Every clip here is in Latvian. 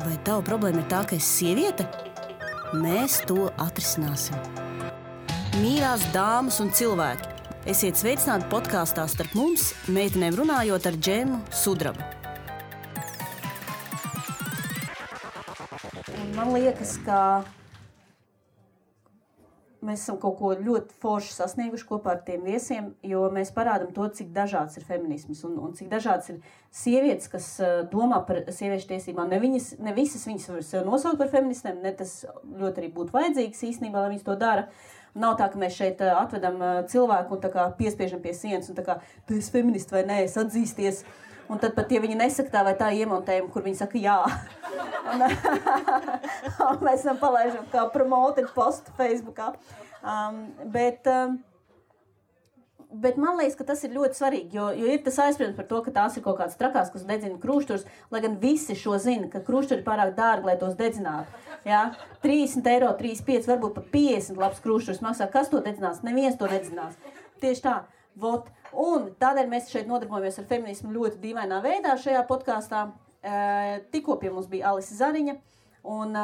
Vai tava problēma ir tā, ka esi sieviete? Mēs to atrisināsim. Mīļās dāmas un cilvēki, esiet sveicināti podkāstā Starp mums, meitenēm runājot ar Džemu Sudrabu. Man liekas, ka mēs esam kaut ko ļoti forši sasnieguši kopā ar tiem viesiem, jo mēs parādām to, cik dažāds ir feminisms un cik dažāds ir sievietes, kas domā par sieviešu tiesībām. Ne visas viņas var sev nosaukt par feministēm, ne tas ļoti arī būtu vajadzīgs īstenībā, lai viņas to dara. Nav tā, ka mēs šeit atvedam cilvēku un tā kā piespiežam pie sienas un tā kā, tu esi feministi vai nē, es atzīsties. Un tad pat, ja viņi nesaka tā vai tā iemontējumu, kur viņi saka jā. Un mēs esam palaižam kā promoted postu Facebookā. Bet man liekas, ka tas ir ļoti svarīgi, jo ir tas aizspriedums par to, ka tās ir kaut kādas trakās, kas dedzina krūšturus, lai gan visi šo zina, ka krūšturi ir pārāk dārgi, lai tos dedzinātu. Ja? 30 eiro, 35, varbūt pat 50 labs krūšturs maksā. Kas to dedzinās? Neviens to nedzinās. Tieši tā. Vot. Un tādēļ mēs šeit nodarbojamies ar feminismu ļoti dīvainā veidā šajā podkāstā. Tikko pie mums bija Alise Zariņa un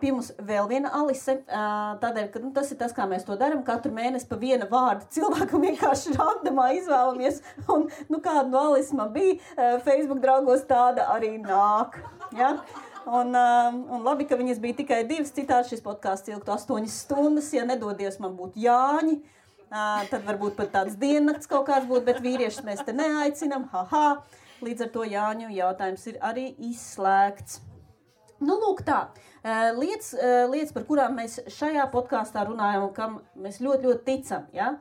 pie mums vēl viena Alise. Tādēļ, ka tas ir tas, kā mēs to darām. Katru mēnesi pa viena vārdu cilvēku vienkārši randomā izvēlamies. Un kāda no Alise man bija Facebook draugos, tāda arī nāk. Ja? Un labi, ka viņas bija tikai 2, citādi šis podkāsts ilgtu 8 stundas. Ja nedodies, man būtu Jāņi. Tad varbūt pat tāds diennakts kaut kāds būtu, bet vīriešus mēs te neaicinam. Līdz ar to Jāņu jautājums ir arī izslēgts. Lūk tā. Lietas, par kurām mēs šajā podkāstā runājam un kam mēs ļoti, ļoti ticam. Ja?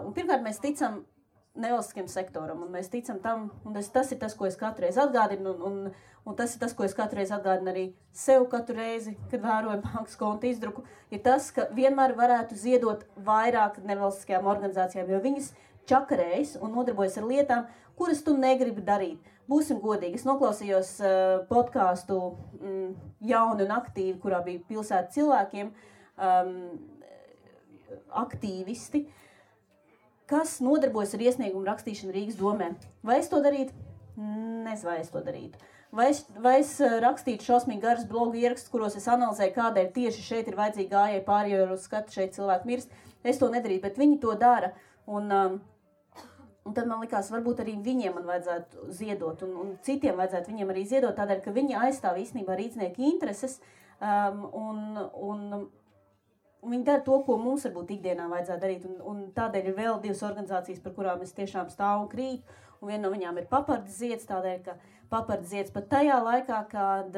Un pirmkārt, mēs ticam nevalstiskajam sektoram, un mēs ticam tam, un tas ir tas, ko es katru reizi atgādinu, un tas ir tas, ko es katru reizi atgādinu arī sev katru reizi, kad vēroju bankas konta izdruku, ir tas, ka vienmēr varētu ziedot vairāk nevalstiskajām organizācijām, jo viņas čakarējas un nodarbojas ar lietām, kuras tu negribi darīt. Būsim godīgi. Es noklausījos podkāstu Jauni un aktīvi, kurā bija pilsēta cilvēkiem, aktīvisti, kas nodarbojas ar iesniegumu rakstīšanu Rīgas domē. Vai es to darītu? Nezinu, vai es to darītu. Vai es rakstītu šausmīgi garas blogu ierakstus, kuros es analizēju, kādēļ tieši šeit ir vajadzīgi gājēji pāri, jo uz skatu šeit cilvēki mirst. Es to nedarītu, bet viņi to dara. Un tad man likās, varbūt arī viņiem man vajadzētu ziedot, un citiem vajadzētu viņiem arī ziedot, tādēļ, ka viņi aizstāv īstenībā rīznieku intereses, un viņi dara to, ko mums varbūt ikdienā vajadzētu darīt, un tādēļ ir vēl 2 organizācijas, par kurām es tiešām stāvu un krītu, un viena no viņām ir Papardes zieds, tādēļ, ka Papardes zieds pat tajā laikā, kad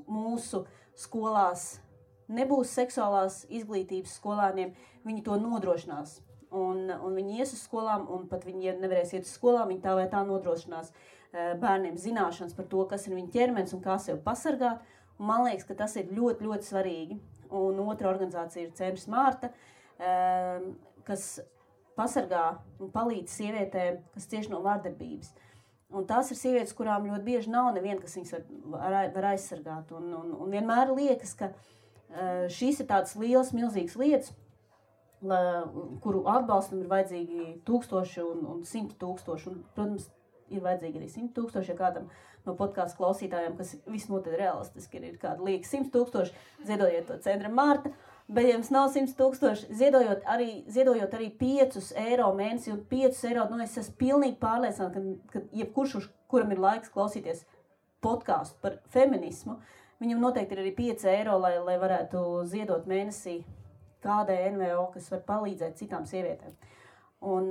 mūsu skolās nebūs seksuālās izglītības skolāniem, viņi to nodrošinās. Un viņi ies uz skolām, un pat viņi, ja nevarēs iet uz skolām, viņi tā vai tā nodrošinās bērniem zināšanas par to, kas ir viņa ķermenis un kā sev pasargāt. Un man liekas, ka tas ir ļoti, ļoti svarīgi. Un otra organizācija ir Centrs Mārta, kas pasargā un palīdz sievietēm, kas cieši no vardarbības. Un tās ir sievietes, kurām ļoti bieži nav neviena, kas viņas var aizsargāt. Un vienmēr liekas, ka šīs ir tādas lielas, milzīgas lietas, kuru atbalstam ir vajadzīgi 1000 un 100 000. Un, protams, ir vajadzīgi arī 100 000, ja kādam no podkāstu klausītājiem, kas visnotaļ realistiski ir kāda lieka 100 000, ziedojiet to Centram Mārta, bet ja jums nav 100 000, ziedojot arī 5 eiro mēnesi, un 5 eiro, es esmu pilnīgi pārliecināta, ka jebkurš, kuram ir laiks klausīties podkāstu par feminismu, viņam noteikti ir arī 5 eiro, lai varētu ziedot mēnesī kādai NVO, kas var palīdzēt citām sievietēm. Un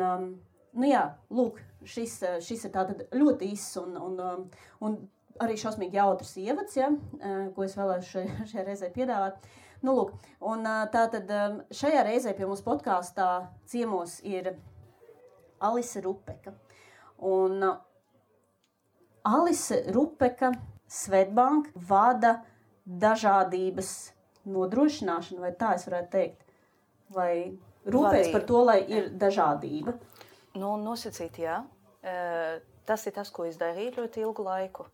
lūk, šis ir tātad ļoti īss un arī šausmīgi jautrs ievads, ja, ko es vēlēšu šajā reizē piedāvāt. Lūk, un tātad šajā reizē pie mums podkāstā ciemos ir Alise Rupeka. Un Alise Rupeka Swedbank vada dažādības nodrošināšanu, vai tā es varētu teikt, vai rūpēs par to, lai ir dažādība? Nosacīt, jā. Tas ir tas, ko es darīju ļoti ilgu laiku.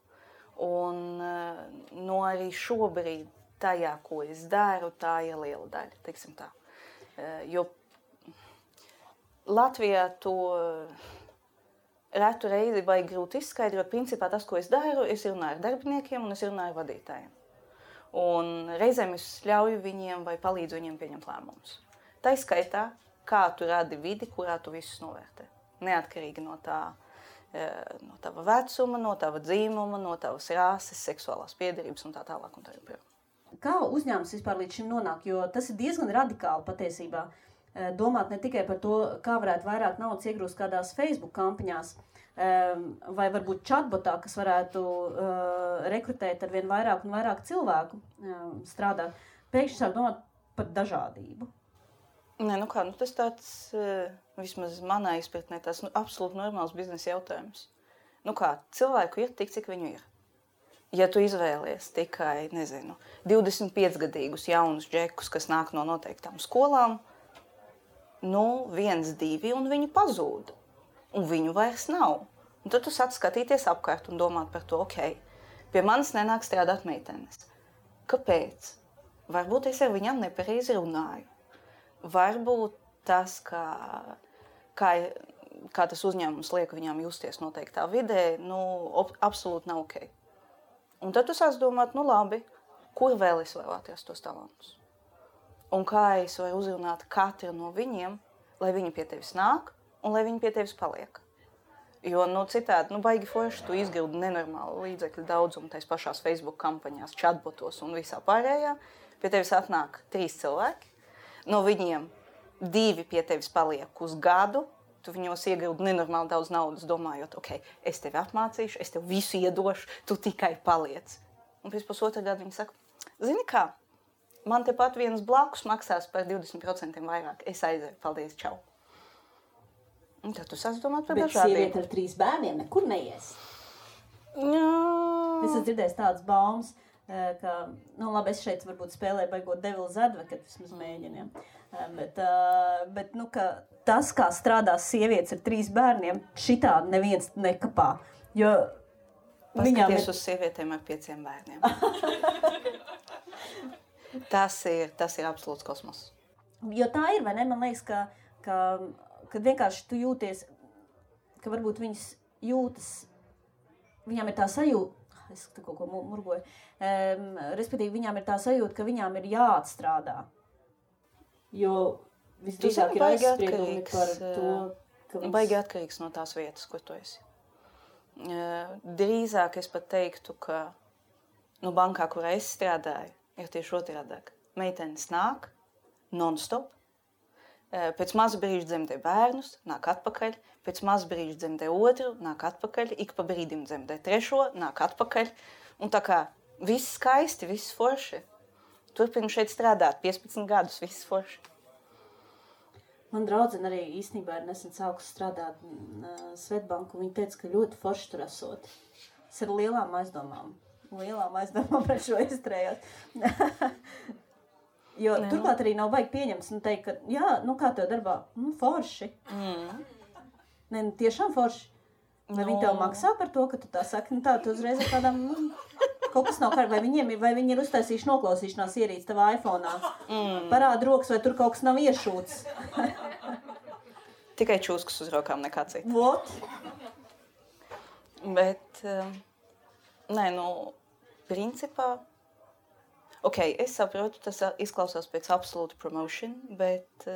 Un arī šobrīd tajā, ko es daru, tā ir liela daļa, teiksim tā. Jo Latvijā to retu reizi baigi grūti izskaidrot. Principā tas, ko es daru, es runāju ar darbiniekiem un es runāju ar vadītājiem. Un reizēm es ļauju viņiem vai palīdzu viņiem pieņemt lēmumus. Tā izskaitā, kā tu radi vidi, kurā tu visus novērtē. Neatkarīgi no tava vecuma, no tava dzīmuma, no tavas rāses, seksuālās piederības un tā tālāk un tā joprojām. Kā uzņēmums vispār līdz šim nonāk? Jo tas ir diezgan radikāli patiesībā. Domāt ne tikai par to, kā varētu vairāk naudas iegrūst kādās Facebook kampaņās, vai varbūt chatbotā, kas varētu rekrutēt ar vien vairāk un vairāk cilvēku strādāt. Pēkšņi sāk domāt par dažādību. Nē, tas tāds, vismaz manā izpratnē, tas absolūti normāls biznesa jautājums. Cilvēku ir tik, cik viņu ir. Ja tu izvēlies tikai, 25-gadīgus jaunus džekus, kas nāk no noteiktām skolām, 1, 2, un viņi pazūd. Un viņu vairs nav. Un tad tu sāc skatīties apkārt un domāt par to, pie manis nenāk strādāt meitenes. Kāpēc? Varbūt es ar viņām nepareizi runāju. Varbūt tas, kā tas uzņēmums liek viņām justies noteiktā vidē, absolūti nav ok. Un tad tu sāc domāt, labi, kur vēl es varu atrast tos talantus? Un kā es varu uzrunāt katru no viņiem, lai viņi pie tevis nāk un lai viņi pie tevis paliek. Jo citādi, baigi forši tu izgildi nenormālu līdzekļu daudzumu tais pašās Facebook kampaņās, chatbotos un visā pārējā. Pie tevis atnāk 3 cilvēki, no viņiem 2 pie tevis paliek uz gadu, tu viņos iegildi nenormāli daudz naudas, domājot, es tevi apmācīšu, es tev visu iedošu, tu tikai paliec. Un pēc pusotra gada viņi saka, zini kā, man tepat viens blakus maksās par 20% vairāk. Es aizēju, paldies, čau. Un tad tu sāc domāt par dažādiem. Bet sieviete ar 3 bērniem nekur neies. Jā. Es esmu dzirdējis tādas baumas, ka, labi, es šeit varbūt spēlēju baigot Devil's Advocate, vismaz mēģiniem. Bet ka tas, kā strādās sievietes ar 3 bērniem, šitādi neviens nekapā. Jo paskaties uz sievietēm ar 5 bērniem. Tas ir absolūts kosmos. Jo tā ir, vai ne? Man liekas, ka vienkārši tu jūties, ka varbūt viņas jūtas, viņām ir tā sajūta, es tu kaut ko murgoju, respektīvi viņām ir tā sajūta, ka viņām ir jāatstrādā. Jo visdrīzāk ir aizspriedumi par to, ka viņas... Baigi atkarīgs no tās vietas, kur tu esi. Drīzāk es pat teiktu, ka bankā, kurā es strādāju, ir tieši otrādāk. Meitenes nāk non-stop, pēc maza brīža dzemdē bērnus, nāk atpakaļ, pēc maza brīža dzemdē otru, nāk atpakaļ, ik pa brīdim dzemdē trešo, nāk atpakaļ. Un tā kā viss skaisti, viss forši. Turpinu šeit strādāt 15 gadus, viss forši. Man draudzene arī īstenībā ir nesen sākusi strādāt Svetbanku, un viņa teica, ka ļoti forši tur esot. Es ar lielām aizdomām pret šo izturējos. Jo turklāt arī nav baigi pieņemts un teikt, ka jā, kā tev darbā? Forši. Ne, tiešām forši. Vai viņi tev maksā par to, ka tu tā saki? Tu uzreiz ar tādām, kaut kas nav kārtībā. Vai viņi ir uztaisījuši noklausīšanās ierīci tavā iPhone'ā? Parāda rokas, vai tur kaut kas nav iešūts? Tikai čūskas uz rokām, nekā cita. What? Bet... Nē, principā, es saprotu, tas izklausās pēc absolūta promotion, bet,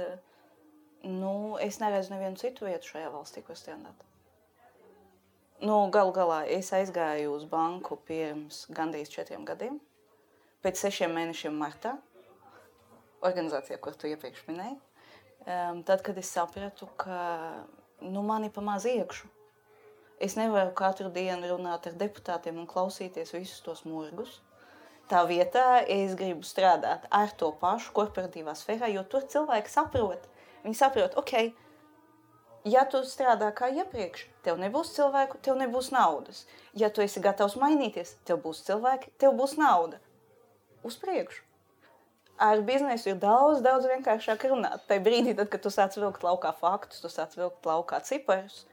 es neredzu nevienu citu vietu šajā valstī, ko strādāt. Galu galā, es aizgāju uz banku pirms gandrīz 4 gadiem, pēc 6 mēnešiem martā, organizācijā, kur tu iepriekš minēji, tad, kad es sapratu, ka, mani pa maz iekšu. Es nevaru katru dienu runāt ar deputātiem un klausīties visus tos murgus. Tā vietā es gribu strādāt ar to pašu korporatīvā sfērā, jo tur cilvēki saprot. Viņi saprot, ja tu strādā kā iepriekš, tev nebūs cilvēku, tev nebūs naudas. Ja tu esi gatavs mainīties, tev būs cilvēki, tev būs nauda. Uz priekšu. Ar biznesu ir daudz vienkāršāk runāt. Tai brīdī, tad, kad tu sāc vilkt laukā faktus, tu sāc vilkt laukā ciparus,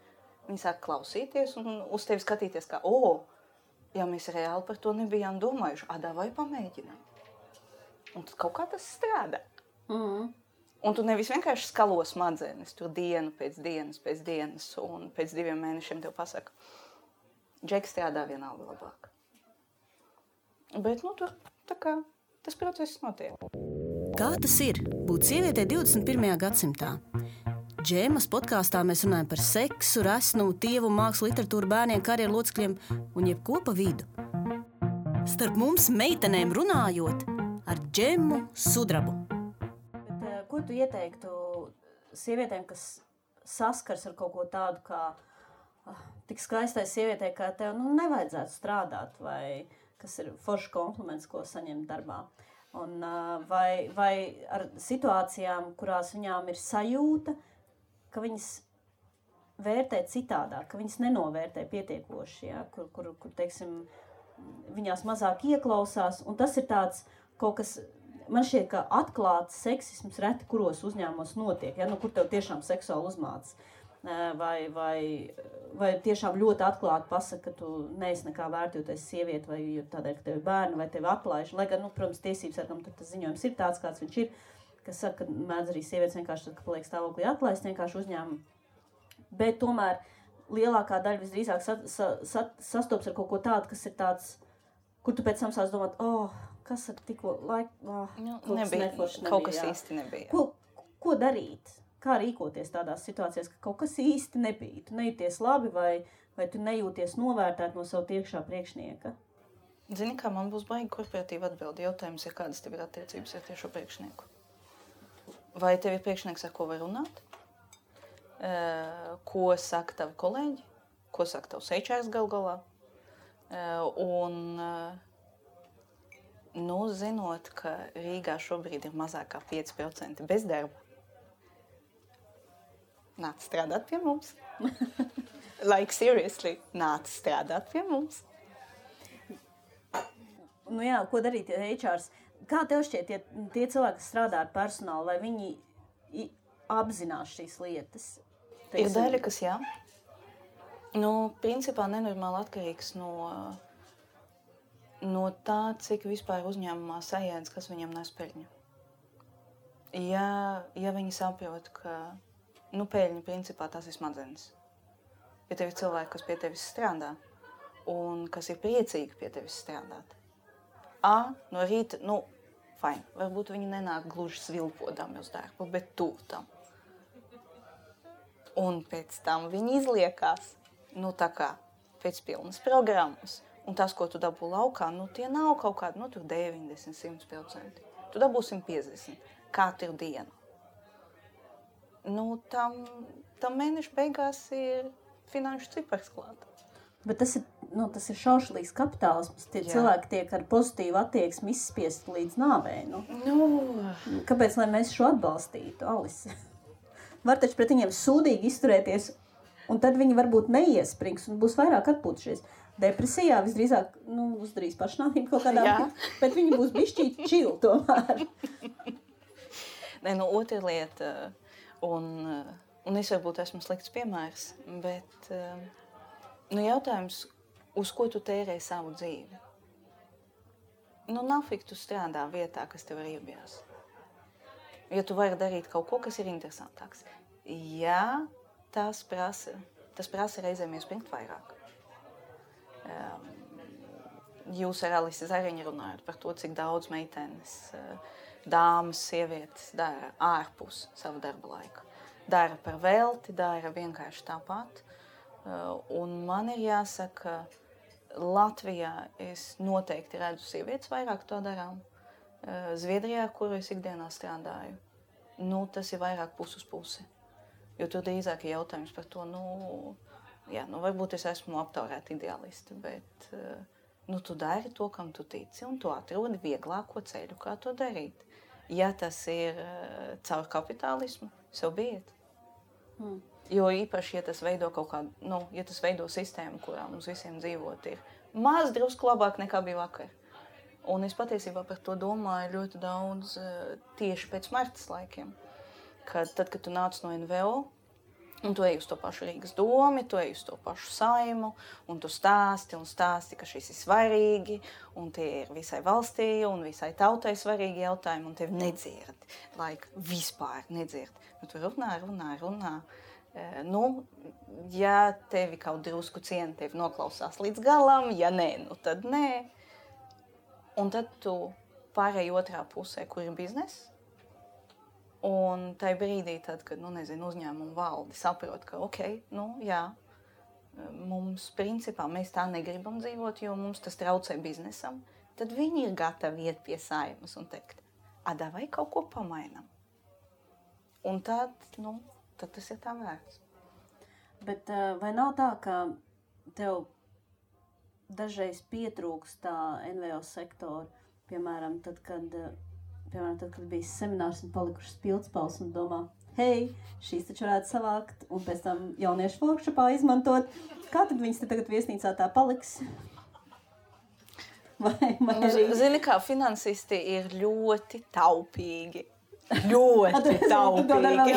viņi sāk klausīties un uz tevi skatīties kā, ja mēs reāli par to nebijām domājuši, vai pamēģinām. Un tad kaut kā tas strādā. Un tu nevis vienkārši skalo smadzenes, tur dienu pēc dienas, un pēc 2 mēnešiem tev pasaka, Džeks strādā vienalga labāk. Bet, tur tā kā tas process notiek. Kā tas ir būt sievietei 21. gadsimtā? Džēmas podkāstā mēs runājam par seksu, resnu, tievu, mākslu, literatūru, bērniem, karjeru locekļiem un jebko pa vidu. Starp mums meitenēm runājot ar Džemu Sudrabu. Bet, ko tu ieteiktu sievietēm, kas saskars ar kaut ko tādu, kā tik skaistai sievietei, kā tev nevajadzētu strādāt, vai kas ir foršs kompliments, ko saņemt darbā? Un, vai ar situācijām, kurās viņām ir sajūta, ka viņas vērtē citādāk, ka viņas nenovērtē pietiekoši, ja? kur teiksim, viņās mazāk ieklausās, un tas ir tāds kaut kas, man šķiet, ka atklāts seksisms reti kuros uzņēmumos notiek, ja? Kur tev tiešām seksuāli uzmāc, vai tiešām ļoti atklāti pasaka, ka tu neesi nekā vērta, jo tu esi sieviete, vai tādēļ, ka tev ir bērni, vai tevi atlaiž, lai gan, protams, tiesības sargam, tad tas ziņojums ir tāds, kāds viņš ir, kas saka, ka mēdz arī sievietes vienkārši tad, ka paliek stāvoklī atlaist vienkārši uzņēmumu. Bet tomēr lielākā daļa visdrīzāk sastops ar kaut ko tādu, kas ir tāds, kur tu pēc tam sāc domāt, kas ar tikko laiku, kaut kas īsti nebija. Ko darīt? Kā rīkoties tādās situācijās, ka kaut kas īsti nebija? Tu nejūties labi vai tu nejūties novērtēt no savu tiekšā priekšnieka? Zini, kā man būs baigi korporatīva atbildi. Jautājums ir, kādas tev ir attiecības ar tiešo priekšnieku? Vai tev ir priekšnieks, ar ko var runāt? Ko saka tavi kolēģi? Ko saka tavs HR gal galā? Zinot, ka Rīgā šobrīd ir mazāk kā 5% bezdarba, nāc strādāt pie mums. Like seriously, nāc strādāt pie mums. Jā, ko darīt HRs? Kā tev šķiet, tie cilvēki, kas strādā ar personālu, vai viņi apzinās šīs lietas? Ir daļa, kas jā. Principā nenormāli atkarīgs no tā, cik vispār uzņēmumā sajēdz, kas viņam nes peļņu. Ja viņi saprot, ka peļņa principā tās ir smadzenes. Ja tev ir cilvēki, kas pie tevis strādā un kas ir priecīgi pie tevis strādāt. No rīta, fine, varbūt viņi nenāk gluži svilpodami uz darbu, bet tuvu tam. Un pēc tam viņi izliekās, tā kā pēc pilnas programmas. Un tas, ko tu dabū laukā, tie nav kaut kādi, tur 90-100%. Tu dabū 150 katru dienu. Tam mēneša beigās ir finanšu cipars klāt. Bet tas ir šaušalīgs kapitālisms. Tie cilvēki tiek ar pozitīvu attieksmi izspiesti līdz nāvei. Kāpēc, lai mēs šo atbalstītu, Alise? Var taču pret viņiem sūdīgi izturēties, un tad viņi varbūt neiesprings un būs vairāk atpūtušies. Depresijā visdrīzāk, uzdarīs pašnāvību kaut kādā, bet viņi būs bišķīt čili tomēr. Otra lieta... Un es varbūt esmu slikts piemērs, bet jautājums, uz ko tu tērēji savu dzīvi? Nafik tu strādā vietā, kas tev riebjās. Ja tu vari darīt kaut ko, kas ir interesantāks. Jā, tas prasa reizēm iespringt vairāk. Jūs ar Alisi Zariņu runājat par to, cik daudz meitenes... dāmas, sievietes dara ārpus savu darba laiku. Dara par velti, dara vienkārši tāpat. Un man ir jāsaka, Latvijā es noteikti redzu sievietes vairāk to darām. Zviedrijā, kur es ikdienā strādāju, tas ir vairāk pus uz pusi. Jo tur drīzāk ir jautājums par to, varbūt es esmu aptaurēta ideālisti, bet tu dari to, kam tu tici, un tu atrodi vieglāko ceļu, kā to darīt. Ja tas ir caur kapitālismu, so biet. Jo īpaši, ja tas veido kaut kādu, ja tas veido sistēmu, kurā mums visiem dzīvot ir maz drusku labāk nekā bija vakar. Un es patiesībā par to domāju ļoti daudz tieši pēc Martas laikiem. Tad, kad tu nāc no NVO, Un tu ej uz to pašu Rīgas domi, tu ej uz to pašu Saimu, un tu stāsti, ka šis ir svarīgi, un tie ir visai valstī un visai tautai svarīgi jautājumi, un tevi nedzird, vispār nedzird. Nu, tu runā. Ja tevi kaut drusku ciena, tevi noklausās līdz galam, ja nē, nu tad nē. Un tad tu pārēj otrā pusē, kur ir bizness. Un tajā brīdī, tad, kad uzņēmuma valde saprot, ka mums principā mēs tā negribam dzīvot, jo mums tas traucē biznesam, tad viņi ir gatavi iet pie Saimas un teikt, vai kaut ko pamainam. Un tad tas ir tā vērts. Bet vai nav tā, ka tev dažreiz pietrūkst tā NVO sektora, piemēram, tad, kad bija seminārs un palikušas pildspalvas un domā, hei, šīs taču varētu savākt un pēc tam jauniešu workshopā izmantot. Kā tad viņas te tagad viesnīcā tā paliks? Zini, kā finansisti ir ļoti taupīgi. Ļoti taupīgi.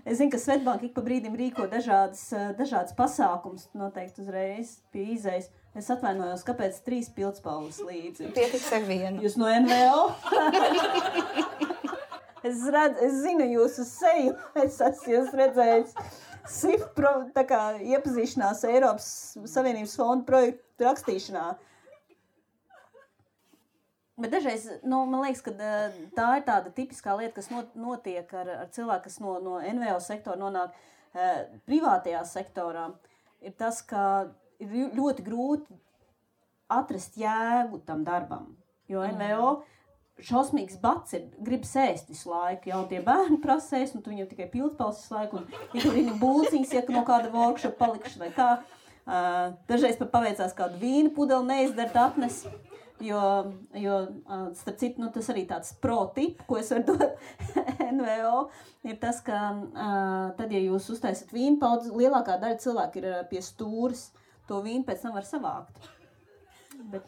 Es zinu, ka Svetbank ik pa brīdim rīko dažādas pasākums, noteikti uzreiz pie izejas. Es atvainojos, kāpēc 3 pildspalvas līdzi? Pietiks ar vienu. Jūs no NVO? Es zinu jūsu seju, es esmu jūs redzējis. SIF iepazīšanās Eiropas Savienības fondu projektu rakstīšanā. Bet dažreiz, man liekas, ka tā ir tāda tipiskā lieta, kas notiek ar cilvēku, kas no NVO sektora nonāk privātajā sektorā, ir tas, ka ir ļoti grūti atrast jēgu tam darbam, jo NVO šausmīgs bats ir, grib sēst visu laiku, jau tie bērni prasēs, un tu viņam tikai pildspalvas visu laiku, un ir tur viņa būciņas, ja no kāda workshop palikuši vai kā. Dažreiz pat paveicās kādu vīnu pudeli neizdart atnes, jo starp citu, tas arī tāds pro tip, ko es varu dot NVO, ir tas, ka tad, ja jūs uztaisat vīnu paudzi, lielākā daļa cilvēku ir pie stūras, to vīnu pēc tam var savākt. Bet,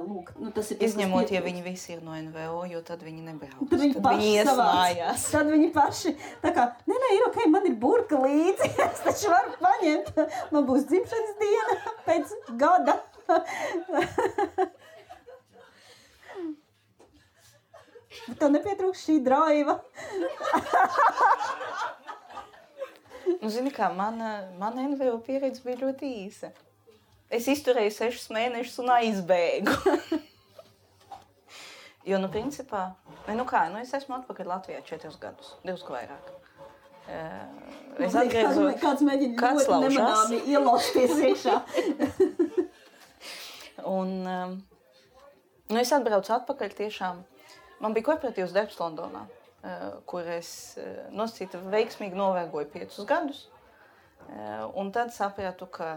lūk, tas ir... Izņemot, ja viņi visi ir no NVO, jo tad viņi nebrauc. Tad viņi ies mājās. Tad viņi paši, tā kā, nē, ir ok, man ir burka līdzi, es taču varu paņemt. Man būs dzimšanas diena pēc gada. Bet tev nepietrūkst šī draiva. Zini kā, mana NVO pieredze bija ļoti īsa. Es izturēju 6 mēnešus un aizbēgu. Jo, principā, es esmu atpakaļ Latvijā 4 gadus, 2 vairāk. Es atgriezos... Kāds mēģina ļoti nemanāmi ielosties iekšā. Un es atbraucu atpakaļ tiešām. Man bija korporatīvs darbs Londonā, kur es nosacītu veiksmīgi novēgoju 5 gadus. Un tad sapratu, ka,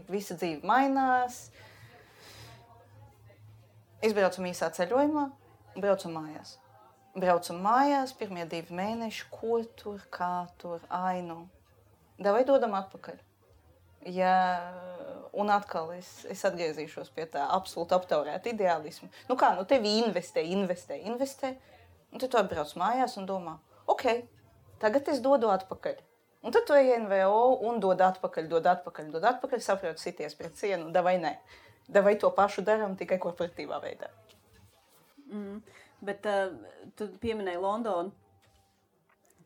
visa dzīve mainās. Izbraucam īsā ceļojumā, braucam mājās. Pirmie 2 mēneši, ko tur, kā tur, Davai dodam atpakaļ. Un atkal es atgriezīšos pie tā absolūti aptaurēta ideālismu. Tevi investē. Un tad tu atbrauc mājās un domā, tagad es dodu atpakaļ. Un tad tu ej NVO un dod atpakaļ, saproti sities pret cienu, davai nē. Davai to pašu daram, tikai korporatīvā veidā. Bet tu pieminēji Londonu.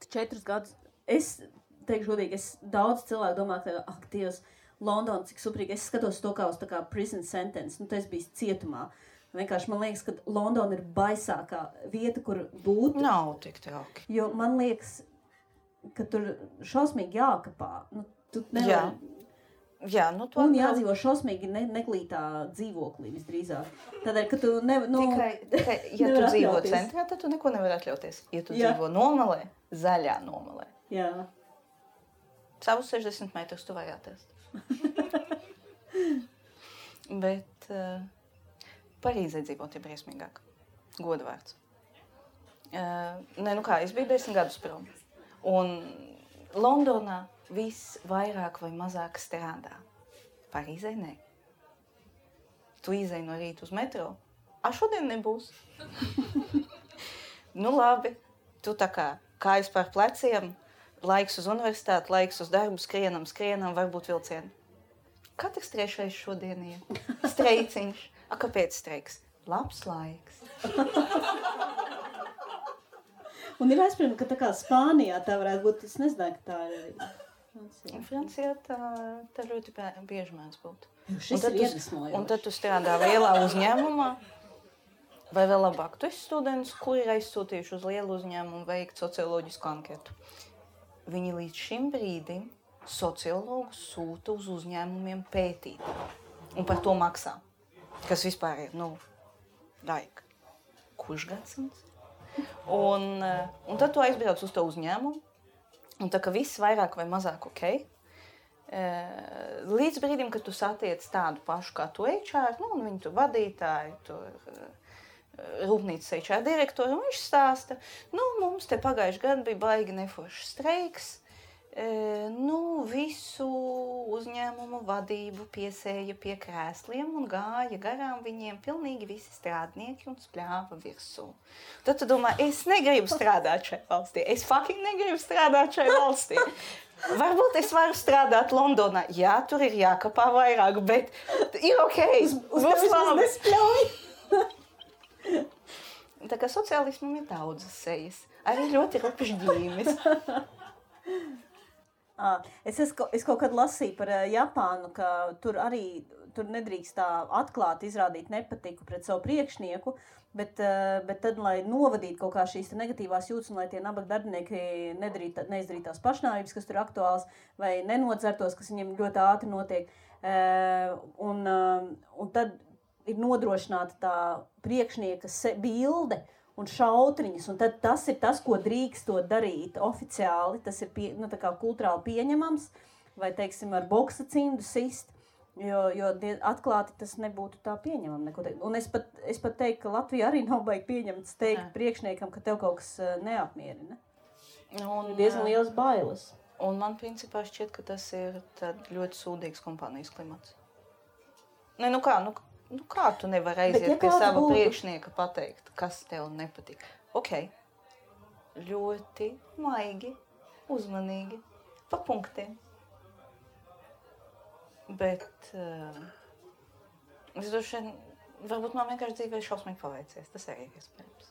4 gadus. Es teikšu godīgi, daudz cilvēku domā, ka, Dievs, Londona, cik suprīgi. Es skatos to kā uz tā kā prison sentence. Tas bija cietumā. Vienkārši man liekas, ka Londona ir baisākā vieta, kur būt. Nav tik trauki. Jo man liekas, ka tur šausmīgi jākapā. Tu nevar... Jā, un jādzīvo šausmīgi neglītā dzīvoklī visdrīzāk. Tādēļ, ka tu tikai, ja tu dzīvo centrā, tad tu neko nevar atļauties. Ja tu dzīvo nomalē, zaļā nomalē. Jā. Savus 60 metrus tu vari atrast. Bet Parīzē dzīvot ir briesmīgāk. Godvārds. Es biju 10 gadus prom. Un Londonā viss vairāk vai mazāk strādā. Parīzē nē. Tu izej no rīta uz metro. Šodien nebūs. Labi. Tu tā kā kājas pār pleciem, laiks uz universitāti, laiks uz darbu, skrienam, varbūt vilcienu. Katrs trešais šodien ir streiciņš. Kāpēc streiks? Labs laiks. Un ir aizspriežami, ka tā kā Spānijā tā varētu būt, es nezināju, ka tā ir. Francijā tā ļoti bieži mēdz būt. Šis ir iedvesmojoši. Un tad tu strādā lielā uzņēmumā, vai vēl labāk, tu esi students, kuri ir aizsūtījuši uz lielu uzņēmumu veikt socioloģisku anketu. Viņi līdz šim brīdim sociologus sūta uz uzņēmumiem pētīt. Un par to maksā. Kas vispār ir, kurš gadsimts? Un tad tu aizbrauc uz to uzņēmumu, un tā ka viss vairāk vai mazāk ok. Līdz brīdim, kad tu satiec tādu pašu kā tu HR, un viņu tur vadītāji, rūpnīcas HR direktori, un viņš stāsta, mums te pagājuši gadu bija baigi neforšs streiks, visu uzņēmumu vadību piesēja pie krēsliem un gāja garām viņiem pilnīgi visi strādnieki un spļāva virsū. Tad tu domā, es negribu strādāt šai valstī, es fucking negribu strādāt šai valstī. Varbūt es varu strādāt Londonā, jā, tur ir jākapā vairāk, bet ir ok, būs labi. Tā kā sociālismam ir daudzas sejas, arī ļoti rupšs ģīmis. Es kaut kad lasīju par Japānu, ka tur nedrīkst tā atklāti izrādīt nepatiku pret savu priekšnieku, bet tad, lai novadītu kaut kā šīs negatīvās jūtas un lai tie nabaga darbinieki neizdarītu tās pašnāvības, kas tur ir aktuāls, vai nenodzertos, kas viņiem ļoti ātri notiek. Un tad ir nodrošināta tā priekšnieka bilde un šautriņas, un tad tas ir tas, ko drīkstot darīt oficiāli, tas ir tā kā kulturāli pieņemams, vai, teiksim, ar boksa cindu sist, jo atklāti tas nebūtu tā pieņemam. Un es pat teiktu, ka Latvija arī nav baigi pieņemts teikt priekšniekam, ka tev kaut kas neapmierina. Ir diezgan liels bailes. Un man principā šķiet, ka tas ir ļoti sūdīgs kompānijas klimats. Kā tu nevari aiziet pie sava priekšnieka pateikt, kas tev nepatīk? Ok, ļoti maigi, uzmanīgi, pa punktiem. Bet es droši vien, varbūt man vienkārši dzīvē šausmīgi paveicies, tas arī ir iespējams.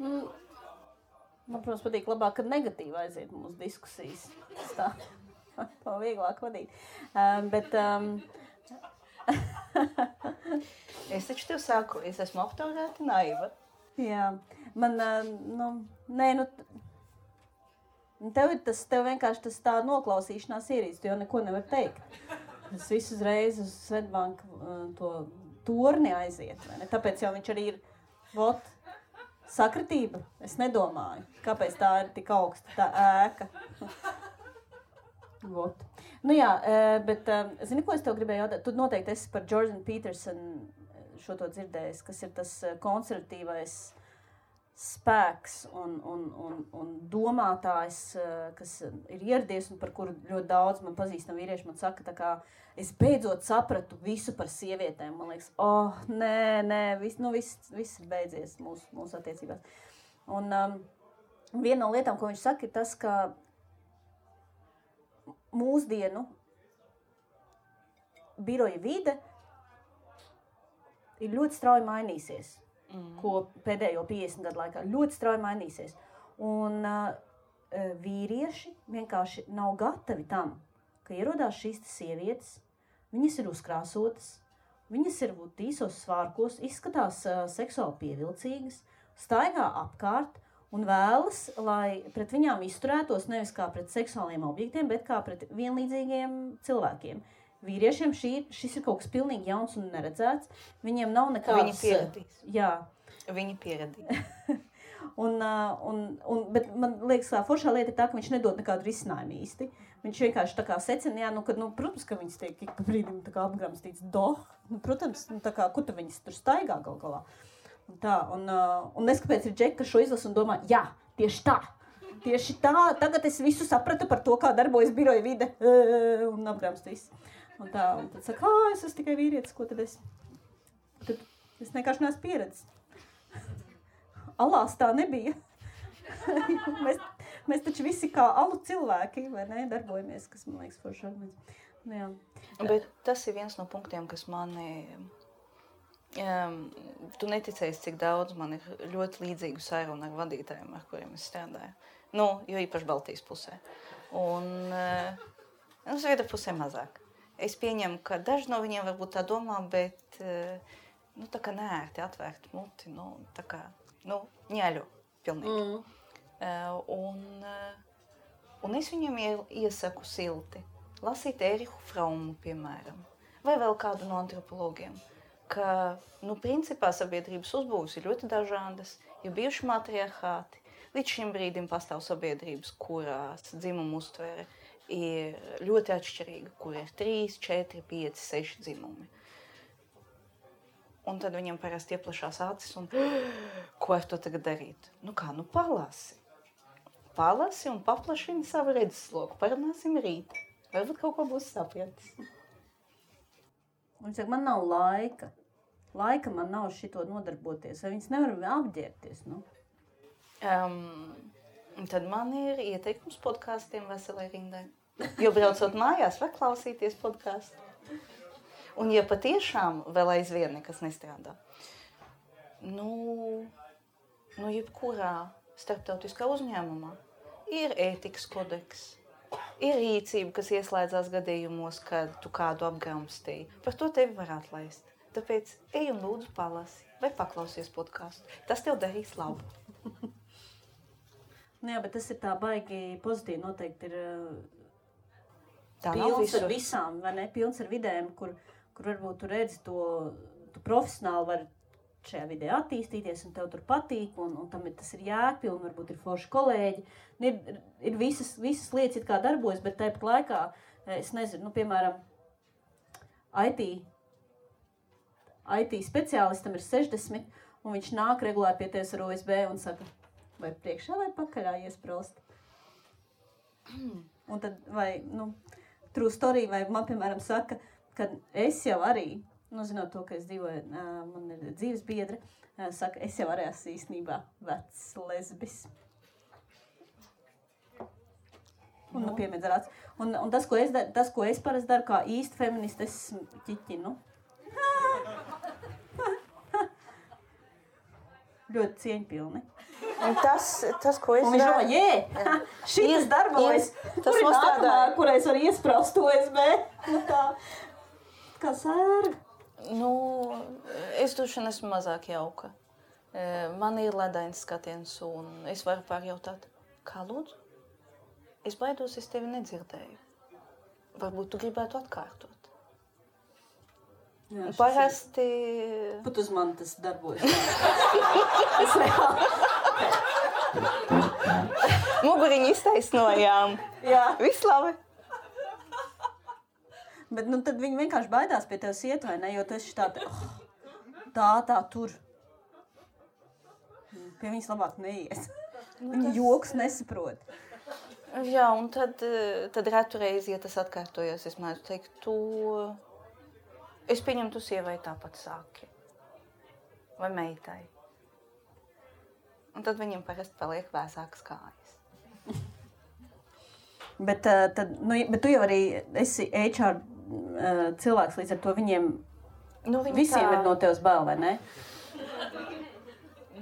Man, protams, patīk labāk, kad negatīvi aiziet mūsu diskusijas. Tā vieglāk vadīt. Es taču tev saku, es esmu aptaurēta naiva. Jā, man, tev vienkārši tā noklausīšanās ierīst, jo neko nevar teikt. Es visu uzreiz uz Svetbanku to torni aiziet, vai ne? Tāpēc jau viņš arī ir, sakritība, es nedomāju, kāpēc tā ir tik augsta, tā ēka. Bet zini, ko es tev gribēju jautāt? Tu noteikti esi par Jordan Peterson šo to dzirdējis, kas ir tas konservatīvais spēks un domātājs, kas ir ieradies un par kuru ļoti daudz man pazīstam vīrieši man saka, tā kā es beidzot sapratu visu par sievietēm. Man liekas, viss ir beidzies mūsu attiecībās. Un viena no lietām, ko viņš saka, ir tas, ka mūsdienu biroja vide ir ļoti strauji mainīsies, ko pēdējo 50 gadu laikā ļoti strauji mainīsies. Un vīrieši vienkārši nav gatavi tam, ka ierodās šīs sievietes, viņas ir uzkrāsotas, viņas ir īsos svārkos, izskatās seksuāli pievilcīgas, staigā apkārt, un vēlas, lai pret viņām izturētos nevis kā pret seksuāliem objektiem, bet kā pret vienlīdzīgiem cilvēkiem. Vīriešiem šis ir kaut kas pilnīgi jauns un neredzēts. Viņiem nav nekādas... Viņi pieradīs. Jā. Viņi pieradīs. Bet man liekas, ka foršā lieta ir tā, ka viņš nedod nekādu risinājumu īsti. Viņš vienkārši tā kā secina, protams, ka viņas tiek ik pa brīdim tā kā apgramstīts protams, tā kā, kur tad viņas tur staigā gal galā. Un es kāpēc ir džeki, ka šo izlasu un domā, jā, tieši tā, tagad es visu sapratu par to, kā darbojas biroja vide un apgramstīs. Un tad saka, es esmu tikai vīrietis, ko tad es? Tad es vienkārši neesmu pieredzis. alās tā nebija. mēs taču visi kā alu cilvēki, vai ne, darbojamies, kas man liekas forši arguments. Jā. Bet tas ir viens no punktiem, kas mani... Tu neticēsi, cik daudz man ir ļoti līdzīgu sarunu ar vadītājiem, ar kuriem es strādāju. Jo īpaši Baltijas pusē. Un Zviedru pusē mazāk. Es pieņemu, ka daži no viņiem varbūt tā domā, bet tā kā neērti atvērt muti, tā kā, ņēļo pilnīgi. Un es viņiem iesaku silti. Lasīt Erihu Fraumu, piemēram, vai vēl kādu no antropologiem, ka, principā sabiedrības uzbūves ir ļoti dažādas, ir bijuši matriarchāti. Līdz šim brīdim pastāv sabiedrības, kurās dzimuma uztvere ir ļoti atšķirīga, kur ir 3, 4, 5, 6 dzimumi. Un tad viņam parasti ieplašās acis un ko ar to tagad darīt? Palasi. Palasi un paplašini savu redzesloku. Parunāsim rīt. Varbūt kaut ko būs sapratis. Viņš saka, man nav laika. Laika man nav šito nodarboties. Vai viņas nevar apģērbties, Tad man ir ieteikums podkāstiem veselai rindai. Jo braucot mājās, var klausīties podkāstu. Un ja patiešām vēl aizvien nekas nestrādā, jebkurā starptautiskā uzņēmumā ir ētikas kodeks, ir rīcība, kas ieslēdzās gadījumos, kad tu kādu apgramstīji. Par to tevi var atlaist. Tāpēc ej un lūdzu palasi vai paklausies podkāstu. Tas tev darīs labu. Jā, bet tas ir tā baigi pozitīvi. Noteikti ir tā pilns ar visām, vai ne? Pilns ar vidēm, kur varbūt tu redzi tu profesionāli var šajā vidē attīstīties un tev tur patīk, un tas ir jēgpilni, varbūt ir forši kolēģi. Ir visas lietas it kā darbojas, bet tāpat laikā, es nezinu, piemēram, IT speciālistam ir 60, un viņš nāk regulāri pie tevis ar OSB un saka, vai priekšā vai pakaļā iesprost. Un tad, vai, true story, vai man, piemēram, saka, ka es jau arī, zinot to, ka es dzīvoju, man ir dzīves biedra, saka, es jau arī esmu īstenībā vecs lesbis. Un, piemēdz ar acu. Un tas, ko es parasti daru, kā īsti feministi, es ķiķinu. Ļoti cieņpilni. Un tas, ko es daru... Un viņš domā, šitas darbojas, kur ir nākamā, kur es varu iespraust OSB. Kā sērga. Es droši esmu mazāk jauka. Man ir ledains skatiens, un es varu pārjautāt, kā lūdzu? Es baidos, es tevi nedzirdēju. Varbūt tu gribētu atkārtot. Jā, parasti... Pat uz mani tas darbojas. Es reāli. Muguriņu iztaisnojām. Jā. Viss labi. Bet tad viņi vienkārši baidās pie tevis iet, vai ne? Jo tu esi tā tur. Pie viņas labāk neies. Viņi joks nesaprot. Jā, un tad retu reizi, ja tas atkārtojas, es mēdzu teikt, es pieņemu, tu sievai tāpat sāki. Vai meitai. Un tad viņiem parasti paliek vēsākas kājas. Bet tu jau arī esi HR cilvēks, līdz ar to viņiem visiem ir no tevis bail, vai ne?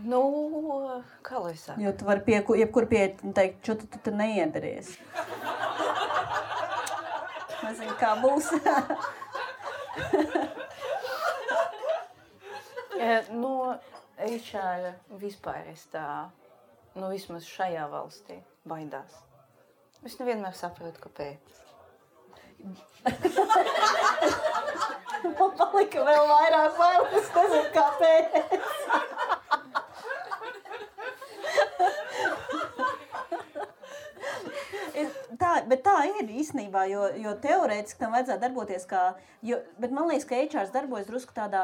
Kā lai saka? Jo tu vari jebkur pieiet un teikt, čo tu neiederties. Nezinu, kā būs. No HR vispār es tā, vismaz šajā valstī baidās. Es nevienmēr saprotu, kāpēc. Man palika vēl vairāk bailes, es nezinu, kāpēc. Bet tā ir īstenībā, jo teorētiski tam vajadzētu darboties bet man liekas, ka HR darbojas drusku tādā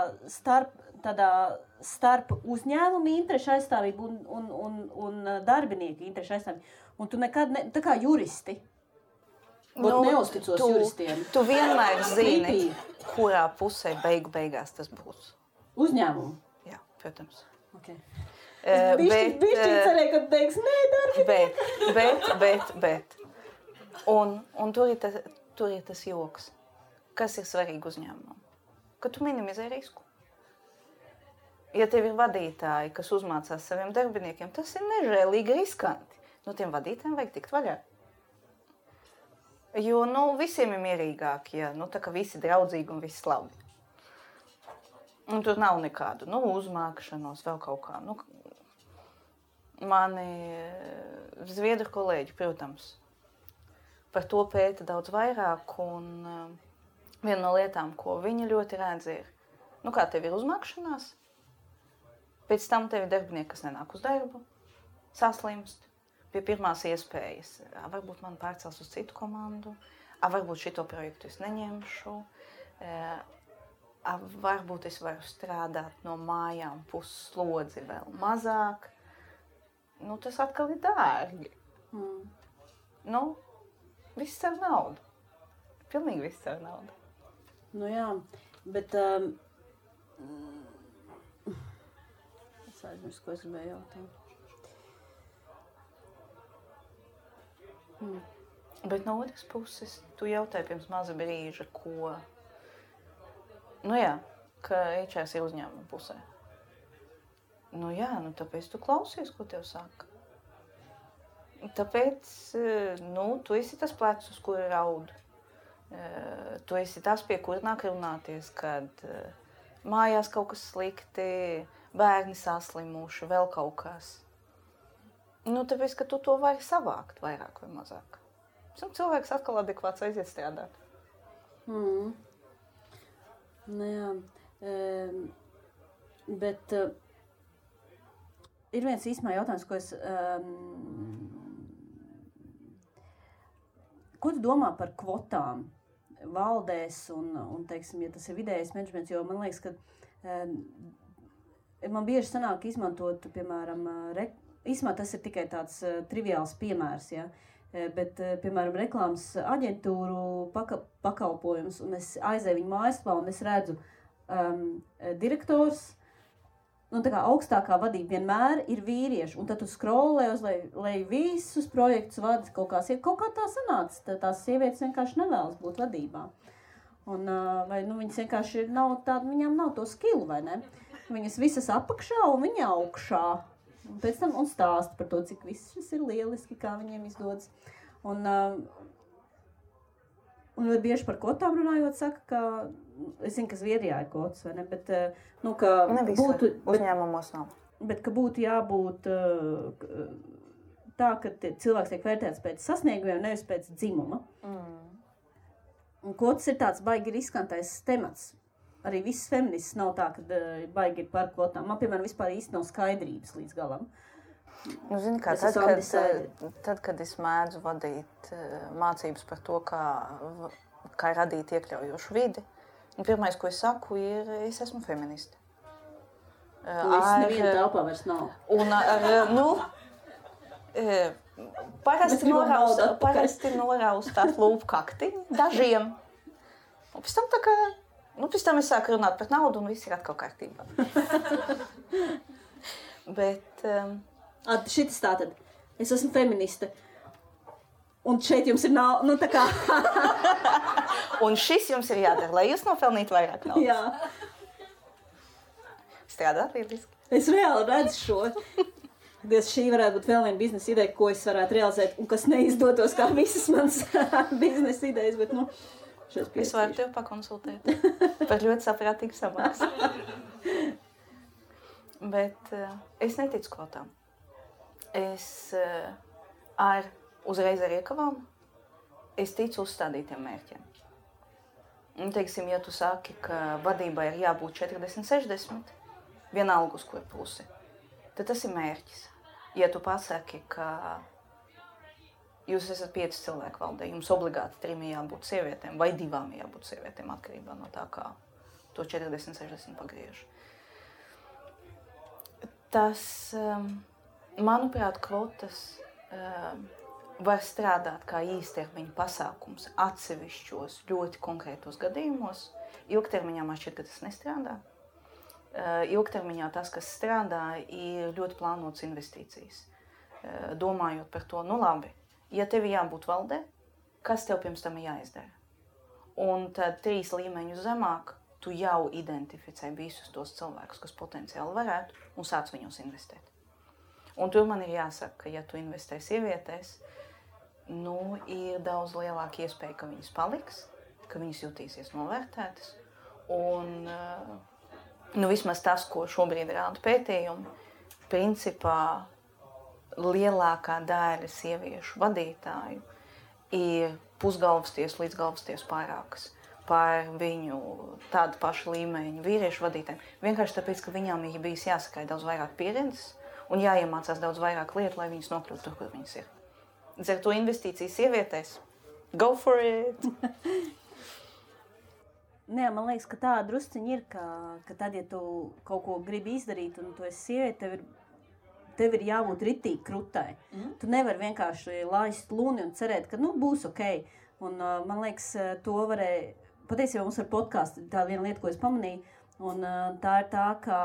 starp uzņēmumu interešu aizstāvību un darbinieku interešu aizstāvību. Un tu nekad, tā kā juristi, neuzticos juristiem. Tu vienmēr zini, kurā pusē beigās tas būs. Uzņēmumu? Jā, protams. Okay. Bišķi cerēju, ka tu teiks, nē, darbinieki. Bet. Un tur ir tas joks. Kas ir svarīgi uzņēmumam? Ka tu minimizē risku. Ja tev ir vadītāji, kas uzmācās saviem darbiniekiem, tas ir nežēlīgi riskanti. No tiem vadītājiem vajag tikt vaļā. Jo, visiem ir mierīgāk, ja, tā kā visi draudzīgi un visi labi. Un tur nav nekādu, uzmākšanos, vēl kaut kā. Mani zviedru kolēģi, protams, par to pēta daudz vairāk, un viena no lietām, ko viņi ļoti redz, ir, kā tev ir uzmākšanās, pēc tam tev ir darbinieki, kas nenāk uz darbu, saslimst, pie pirmās iespējas. Varbūt man pārcels uz citu komandu, varbūt šito projektu es neņemšu, varbūt es varu strādāt no mājām pusslodzi vēl mazāk. Tas atkal ir dārgi. Viss ar naudu. Pilnīgi viss ar naudu. Jā, bet es aizmirsu, ko es gribēju jautāt. Bet no otras puses, tu jautāji pirms maza brīža, ko... ka HR ir uzņēmuma pusē. Tāpēc tu klausies, ko tev saka. Tāpēc, tu esi tas plecs, uz kura raud. Tu esi tas, pie kura nāk runāties, kad mājās kaut kas slikti, bērni saslimuši, vēl kaut kas. Tāpēc, ka tu to vari savākt vairāk vai mazāk. Cilvēks atkal adekvāts aiziet strādāt. Bet ir viens īstumā jautājums, ko es... Ko tu domā par kvotām valdēs un teiksim, ja tas ir vidējais menedžments, jo man liekas, ka man bieži sanāk izmantot, piemēram, īstumā tas ir tikai tāds triviāls piemērs, ja? Bet, piemēram, reklāmas aģentūru pakalpojums, un es aizēju viņu mājaslapā, un es redzu direktors, tā kā augstākā vadība vienmēr ir vīrieši, un tad tu scrollē uz lai visus projektus vada kaut kā tā sanāca, tās sievietes vienkārši nevēlas būt vadībā. Un, vai viņas vienkārši nav tāda, viņām nav to skillu, vai ne? Viņas visas apakšā un viņa augšā. Un pēc tam un stāsta par to, cik viss šis ir lieliski, kā viņiem izdodas. Un bieži par kvotām runājot, saka, ka, es zinu, ka Zviedrijā ir kvotas, vai ne, bet, ka būtu... Uzņēmumos nav. Bet, ka būtu jābūt tā, ka cilvēks tiek vērtēts pēc sasniegumiem, nevis pēc dzimuma. Un kvotas ir tāds baigi riskantais temats. Arī viss feminists nav tā, ka baigi ir par kvotām. Man, piemēram, vispār īsti nav skaidrības līdz galam. Zini kā, tad, kad es mēdzu vadīt mācības par to, kā radīt iekļaujošu vidi, pirmais, ko es saku, ir, es esmu feministe. Viss neviena telpā vairs nav. Un parasti noraustāt lūpkaktiņu dažiem. Un pēc tam tā kā... pēc tam es sāku runāt par naudu un viss ir atkal kārtībā. Bet... Šitas tātad. Es esmu feministe. Un šeit jums ir tā kā... Un šis jums ir jādara, lai jūs nopelnītu vairāk naudas. Jā. Strādāt lieliski. Es reāli redzu šo. Šī varētu būt vēl viena biznesa ideja, ko es varētu realizēt un kas neizdotos kā visas manas biznesa idejas, bet, Es varu tev pakonsultēt par ļoti saprātīgu samaksu. Bet es neticu kvotām. Es uzreiz ar iekavām, es ticu uzstādītiem mērķiem. Un, teiksim, ja tu saki, ka vadībai ir jābūt 40-60, vienalga uz kur pusi, tad tas ir mērķis. Ja tu pasaki, ka jūs esat 5 cilvēku valdē, jums obligāti 3 jābūt sievietēm vai 2 jābūt sievietēm, atkarībā no tā, kā to 40-60 pagriež. Tas, manuprāt, kvotas var strādāt kā īstermiņa pasākums atsevišķos ļoti konkrētos gadījumos. Ilgtermiņā man šķiet, ka tas nestrādā. ilgtermiņā tas, kas strādā, ir ļoti plānotas investīcijas. Domājot par to, nu labi, ja tev jābūt valdē, kas tev pirms tam jāizdara? Un tad 3 līmeņus zemāk tu jau identificē visus tos cilvēkus, kas potenciāli varētu, un sāc viņos investēt. Un tur man ir jāsaka, ka ja tu investē sievietēs, nu, ir daudz lielāka iespēja, ka viņas paliks, ka viņas jutīsies novērtētas. Un nu, vismaz tas, ko šobrīd rāda pētījumi, principā lielākā daļa sieviešu vadītāju ir pusgalvastiesu līdz galvastiesu pārākas par viņu tādu pašu līmeņu vīriešu vadītājiem. Vienkārši tāpēc, ka viņām ir bijis jāsakai daudz vairāk pieredzes un jāiemācās daudz vairāk lietu, lai viņas nokļūtu tur, kur viņas ir. Līdz ar to investīcijas sievietēs. Go for it! Nē, man liekas, ka tā drusciņa ir, ka tad, ja tu kaut ko gribi izdarīt un tu esi sieviete, tev ir jābūt ritīgi krutai. Tu nevari vienkārši laist luni un cerēt, ka nu, būs ok. Un man liekas, to varēja, patiesībā mums ar podcastu tā viena lieta, ko es pamanīju, un tā ir tā, ka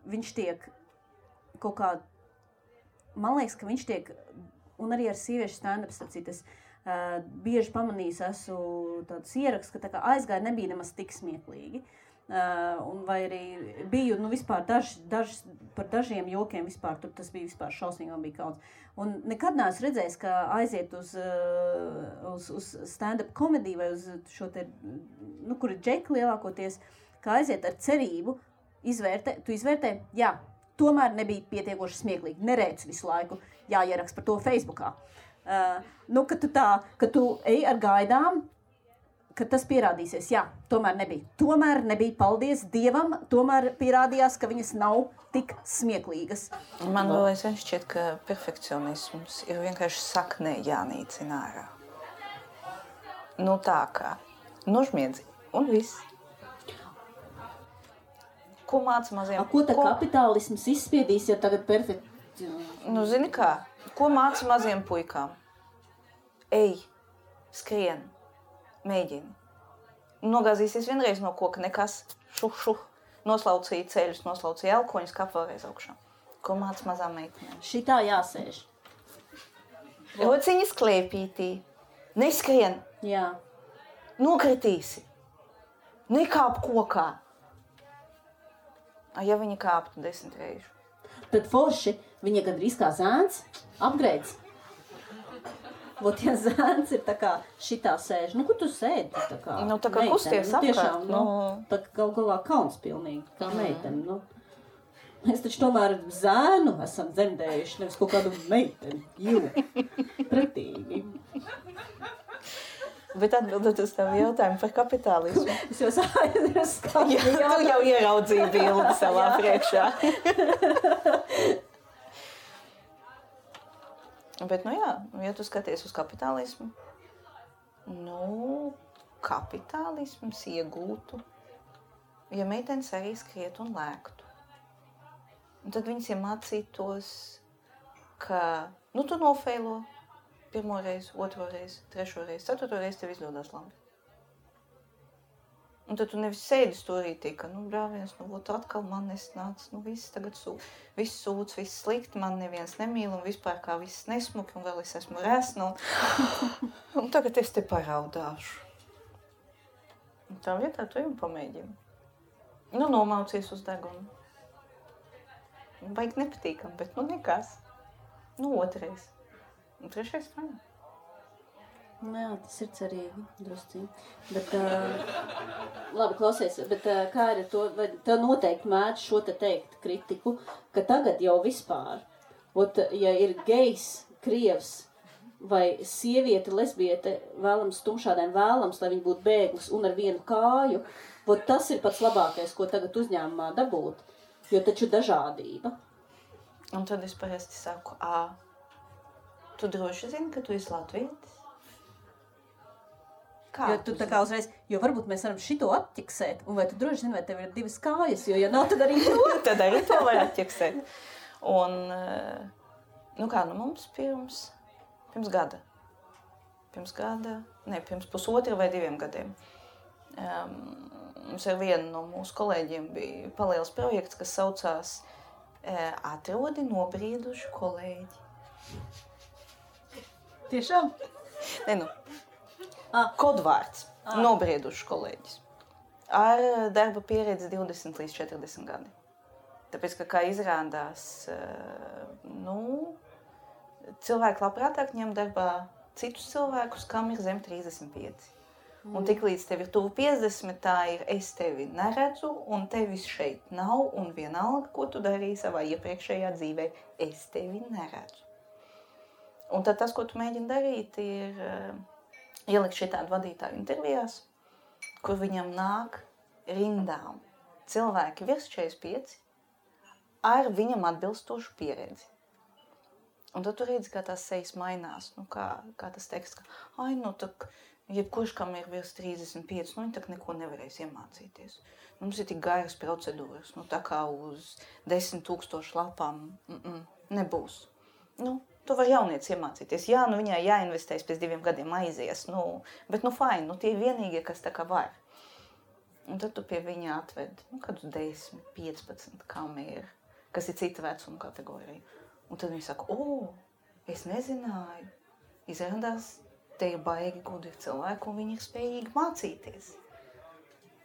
viņš tiek kaut kā, man liekas, ka viņš tiek, un arī ar sieviešu stand-ups, es bieži pamanījis, esmu tāds ieraksts, ka tā kā aizgāja nebija nemaz tik smieklīgi. Un vai arī biju, nu vispār par dažiem jokiem vispār, tur tas bija vispār šausmīgi, man bija kauns. Un nekad neesmu redzējis, ka aiziet uz stand-up komediju vai uz šo te, nu, kur ir džeki lielākoties, ka aiziet ar cerību, tu izvērtē, jā, tomēr nebija pietiekoši smieklīgi, nerēc visu laiku, jāierakst par to Facebookā. Nu, ka tu ej ar gaidām, ka tas pierādīsies. Jā, tomēr nebija. Paldies Dievam, tomēr pierādījās, ka viņas nav tik smieklīgas. Man vēl aizvien šķiet, ka perfekcionisms ir vienkārši saknē jānīcina ārā. Nu tā kā, nožmiedzi un viss. Ko māca maziem? Ko tā kapitālisms izspiedīs, ja tagad perfekcionisms? Nu, zini kā, ko māca maziem puikām? Ej, skrien. Mēģini. Nogāzīsies vienreiz no koka, nekas, šuh, noslaucīja ceļus, noslaucīja elkoņus, kāp vēlreiz augšā. Ko māca mazām meitenēm? Šitā jāsēž. Rociņas klēpītī. Neskrien. Jā. Nokritīsi. Nekāp kokā. Ja viņa kāptu 10 reižu. Tad forši, viņa gandrīz kā zēns, apgreids. Vot, ja zēns ir tā kā šitā sēž, nu, kur tu sēdi? Tā kā nu, tā kā meitene, kusties apkārt. Tiešām, nu, tā kā galā kauns pilnīgi, kā meitene, nu. Mēs taču tomēr zēnu esam dzemdējuši, nevis kaut kādu meiteni, pretīgi. Bet atbildot uz tavu jautājumu par kapitālismu. Es jau aizmirstu. Tu jau ieraudzīji bildi savā priekšā. Bet, nu jā, ja tu skaties uz kapitālismu, nu, kapitālisms iegūtu, ja meitenes arī skriet un lēktu. Un tad viņas iemācītos, ka, nu, tu nofeilo pirmo reizi, otro reizi, trešo reizi, ceturto reizi tev izdodas labi. Un tad tu nevis sēdi stūrītī, ka, nu, brāviens, nu, ot, atkal man nesnāc, nu, viss tagad viss sūdz, viss slikti, man neviens nemīl, un vispār kā viss nesmuki, un vēl es esmu resna, un tagad es te paraudāšu. Un tā vietā tu jau pamēģini. Nu, nomaucies uz degunu. Baigi nepatīkam, bet, nu, nekas. Nu, otrais. Un trešais fajn. Jā, tas ir cerīgi, drusciņi. Bet, labi, klausies, bet kā ir to, vai tev noteikti mēdz šo te teikt kritiku, ka tagad jau vispār, ja ir gejs, krievs vai sieviete, lesbiete, vēlams tumšādēm vēlams, lai viņi būtu bēglis un ar vienu kāju, tas ir pats labākais, ko tagad uzņēmumā dabūt, jo taču dažādība. Un tad es parasti saku, tu droši zini, ka tu esi latvietis? Jo tu tā kā uzreiz, jo varbūt mēs varam šito atķiksēt, un vai tu droši zini, vai tev ir 2 kājas, jo ja nav, tad arī to. Tad arī to var atķiksēt. Un, nu kā, nu mums pirms gada, pirms pusotra vai 2 gadiem, mums ar vienu no mūsu kolēģiem bija paliels projekts, kas saucās Atrodi nobriedušu kolēģi. Tiešām? Ne, kodvārds. Nobriedušu kolēģis. Ar darba pieredzi 20 līdz 40 gadi. Tāpēc, ka, kā izrādās, cilvēki labprātāk ņem darbā citus cilvēkus, kam ir zem 35. Un tik līdz tev ir tuvu 50, tā ir es tevi neredzu, un tevis šeit nav, un vienalga, ko tu darīji savā iepriekšējā dzīvē, es tevi neredzu. Un tad tas, ko tu mēģini darīt, ir ielikt šitādu vadītāju intervijās, kur viņam nāk rindām cilvēki virs 45 ar viņam atbilstošu pieredzi. Un tad tu redzi, kā tās sejas mainās, kā tas teksts, ka, jebkurš, kam ir virs 35, viņi tak neko nevarēs iemācīties. Mums ir tik garas procedūras, tā kā uz 10 000 lapām nebūs. Tu vari jaunietis iemācīties. Jā, viņai jāinvestēs pēc 2 gadiem aizies, bet fajn, tie ir vienīgie, kas tā kā var. Un tad tu pie viņa atved, kādus 10, 15, kam ir, kas ir cita vecuma kategorija. Un tad viņi saka, es nezināju, izrādās, te ir baigi gudri cilvēki, un viņi ir spējīgi mācīties.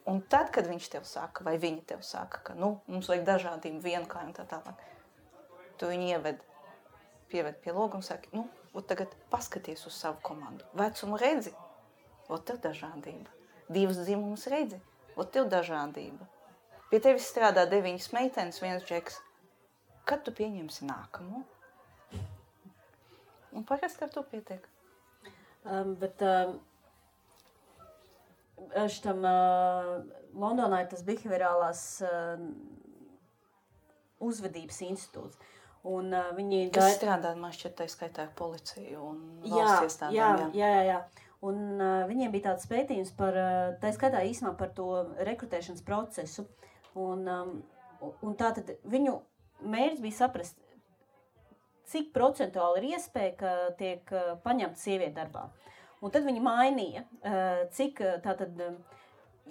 Un tad, kad viņš tev saka, vai viņa tev saka, ka, mums vajag dažādību vienkārši un tā tālāk, tu viņu pieved pie loga un saki, tagad paskaties uz savu komandu. Vecumu redzi, tev dažādība. 2 dzimumus redzi, tev dažādība. Pie tevis strādā 9 meitenes, 1 džeks. Kad tu pieņemsi nākamo? Un parasti ar to pietiek. Bet šitam Londonā ir tas behaviorālās uzvedības institūts. Un viņi kas strādā, man šķiet, tā skaitā ar policiju un valsts iestādēm. Jā. Un viņiem bija tāds pētījums par, tā skaitā īsumā par to rekrutēšanas procesu. Un tātad viņu mērķis bija saprast, cik procentuāli ir iespēja, ka tiek paņemta sieviete darbā. Un tad viņi mainīja, cik tātad,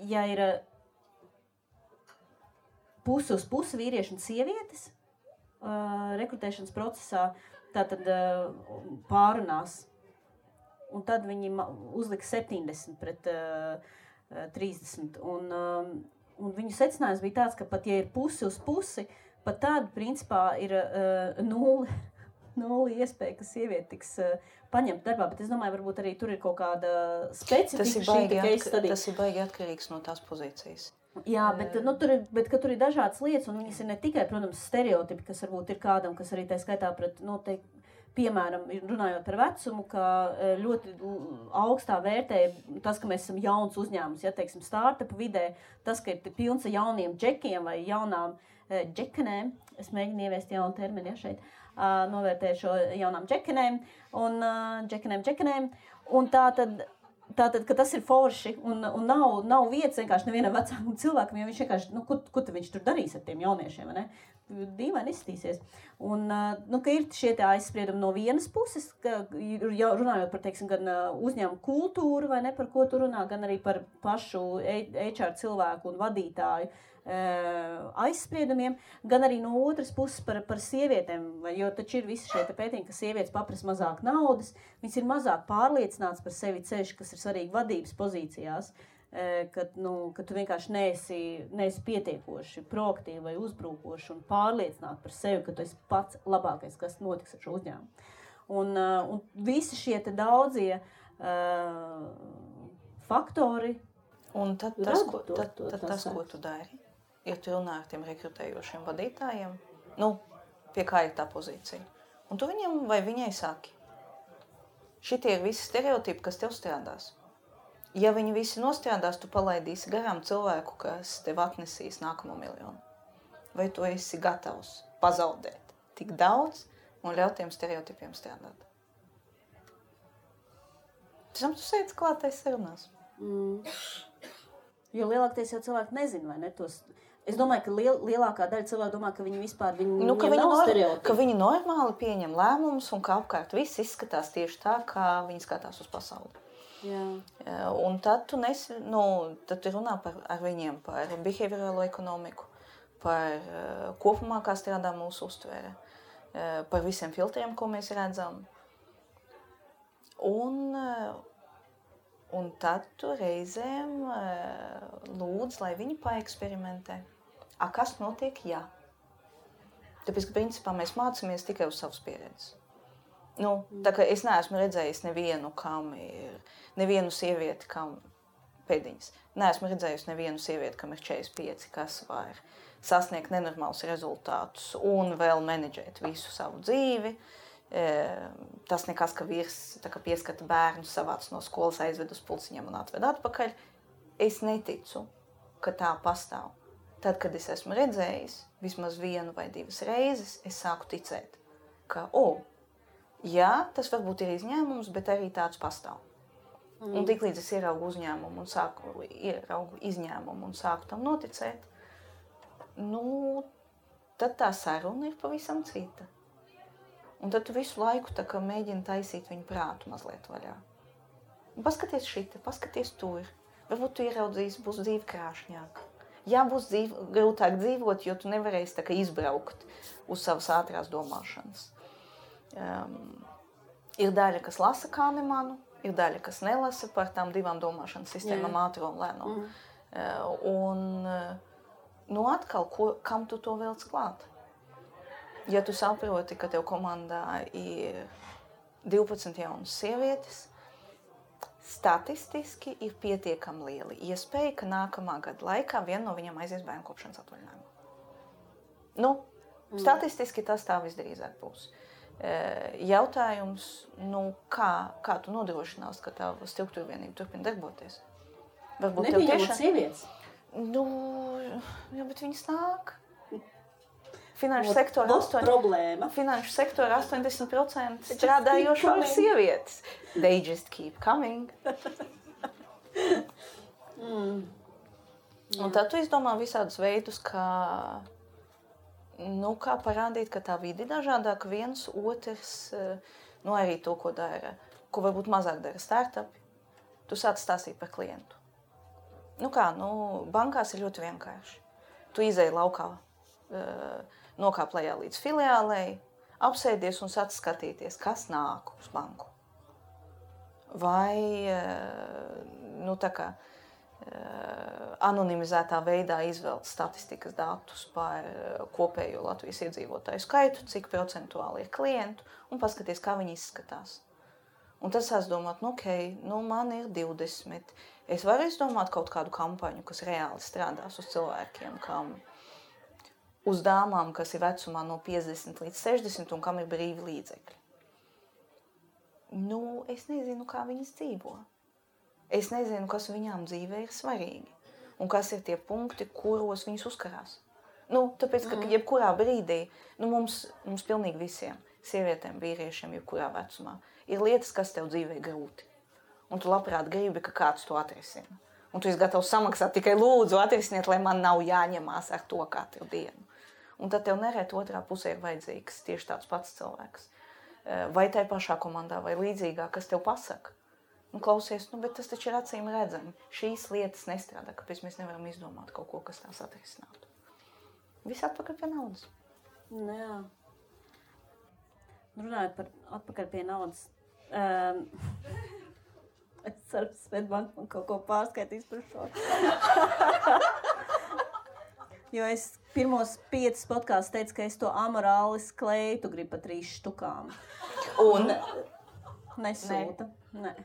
ja ir pusi uz pusi vīrieši un sievietes rekrutēšanas procesā, tātad pārunās. Un tad viņi uzlika 70 pret 30. Un viņu secinājums bija tāds, ka pat ja ir pusi uz pusi, pat tāda principā ir nulli iespēja, ka sieviete tiks paņemta darbā, bet es domāju, varbūt arī tur ir kaut kāda specifika. Tas ir baigi atkarīgs no tās pozīcijas. Jā, bet tur ir dažādas lietas, un viņas ir ne tikai, protams, stereotipi, kas varbūt ir kādam, kas arī tā skaitā pret noteikti, piemēram, runājot par vecumu, ka ļoti augstā vērtē tas, ka mēs esam jauns uzņēmums, ja, teiksim, startupu vidē, tas, ka ir pilns ar jauniem džekiem vai jaunām džekenēm, es mēģinu ieviest jaunu terminu, ja, šeit, novērtēju šo jaunām džekenēm, un džekenēm, un tātad, ka tas ir forši, un nav vietas vienkārši nevienam vecākam cilvēkam, jo viņš vienkārši, ko viņš tur darīs ar tiem jauniešiem, vai ne? Dīvaini izskatīsies. Un, ka ir šie tie aizspriedumi no vienas puses, ka runājot par, teiksim, gan uzņēmumu kultūru, vai ne, par ko tu runā, gan arī par pašu HR cilvēku un vadītāju aizspriedumiem, gan arī no otras puses par sievietēm, jo taču ir visi šie pētījumi, ka sievietes paprasa mazāk naudas, viņas ir mazāk pārliecināts par sevi ceļš, kas ir svarīgi vadības pozīcijās, ka tu vienkārši neesi pietiekoši proaktīvi vai uzbrukoši un pārliecināti par sevi, ka tu esi pats labākais, kas notiks ar šo uzņēmumu. Un visi šie te daudzie faktori. Un tad tas, ko tu dari, ja tu runā ar tiem rekrutējošiem vadītājiem, pie kā ir tā pozīcija. Un tu viņam vai viņai saki, šitie ir visi stereotipi, kas tev strādās. Ja viņi visi nostrādās, tu palaidīsi garām cilvēku, kas tev atnesīs nākamo miljonu. Vai tu esi gatavs pazaudēt tik daudz un ļaut tiem stereotipiem strādāt? Pēc tu sēdz klātais sarunās. Jo lielākais jau cilvēki nezina, vai ne? Es domāju, ka lielākā daļa cilvēku domā, ka viņi vispār nav stereotipi. Ka viņi normāli pieņem lēmumus un ka apkārt viss izskatās tieši tā, kā viņi skatās uz pasauli. Jā. Un tad tu runā ar viņiem par behaviorālo ekonomiku, par kopumā, kā strādā mūsu uztvere, par visiem filtriem, ko mēs redzam. Un tad tu reizēm lūdz, lai viņi paeksperimentē. Kas notiek, jā? Tāpēc, ka principā mēs mācāmies tikai uz savas pieredzes. Tā kā es neesmu redzējis nevienu sievieti, kam pēdiņas. Neesmu redzējusi nevienu sievieti, kam ir 45, kas var sasniegt nenormālus rezultātus un vēl menedžēt visu savu dzīvi. Tas nekas, ka vīrs pieskata bērnu, savāc no skolas, aizved uz pulciņiem un atved atpakaļ. Es neticu, ka tā pastāv. Tad, kad es esmu redzējis vismaz 1 vai 2 reizes, es sāku ticēt, ka, jā, tas varbūt ir izņēmums, bet arī tāds pastāv. Un tiklīdz es ieraugu uzņēmumu un ieraugu izņēmumu un sāku tam noticēt, tad tā saruna ir pavisam cita. Un tad tu visu laiku mēģini taisīt viņu prātu mazliet vaļā. Paskaties šita, paskaties tur. Varbūt tu ieraudzīsi, būs dzīve krāšņāka. Jā, būs grūtāk dzīvot, jo tu nevarēsi izbraukt uz savas ātrās domāšanas. Ir daļa, kas lasa Kahnemanu, ir daļa, kas nelasa par tām 2 domāšanas sistēmām, ātro un lēno. Un atkal, kam tu to velc klāt? Ja tu saproti, ka tev komandā ir 12 jaunas sievietes, statistiski ir pietiekami liela iespēja, ka nākamā gada laikā viena no viņām aizies bērnu kopšanas atvaļinājumā. Statistiski tas tā visdrīzāk būs. Jautājums, kā tu nodrošinās, ka tā struktūra vienība turpina darboties? Nebija sievietes? Jā, bet viņas nāk. Finanšu sektora 80% strādājošo ir sievietes. They just keep coming. Un tad tu izdomā visādus veidus, kā parādīt, ka tā vide ir dažādāka. Viens, otrs, arī to, ko dara, ko varbūt mazāk dara startupi. Tu sāc stāstīt par klientu. Bankās ir ļoti vienkārši. Tu izēji laukā, nokāp lejā līdz filiālei, apsēdies un sāc skatīties, kas nāk uz banku. Vai anonimizētā veidā izvēlt statistikas datus par kopējo Latvijas iedzīvotāju skaitu, cik procentuāli ir klientu, un paskaties, kā viņi izskatās. Un tad sāc domāt, man ir 20. Es varu izdomāt kaut kādu kampaņu, kas reāli strādās uz cilvēkiem, uz dāmām, kas ir vecumā no 50 līdz 60 un kam ir brīvi līdzekļi. Es nezinu, kā viņas dzīvo. Es nezinu, kas viņām dzīvē ir svarīgi un kas ir tie punkti, kuros viņas uzkarās. Tāpēc, ka jebkurā brīdī, mums pilnīgi visiem, sievietēm, vīriešiem, jebkurā vecumā, ir lietas, kas tev dzīvē grūti. Un tu labprāt gribi, ka kāds to atrisina. Un tu esi gatavs samaksāt tikai lūdzu atrisiniet, lai man nav jāņemās ar to katru dienu. Un tad tev nereti otrā pusē ir vajadzīgs tieši tāds pats cilvēks. Vai tai pašā komandā, vai līdzīgā, kas tev pasaka. Klausies, bet tas taču ir acīm redzami. Šīs lietas nestrādā, kāpēc mēs nevaram izdomāt kaut ko, kas tās atrisinātu. Viss atpakaļ pie naudas. Jā. Runājot par atpakaļ pie naudas. Es ceru, ka Svetbank man kaut ko pārskaitīs par šo. Jo es pirmos 5 podkāstus teicu, ka es to amorālis kleitu gribu pa 3 štukām. Un? Nesūta. Nē.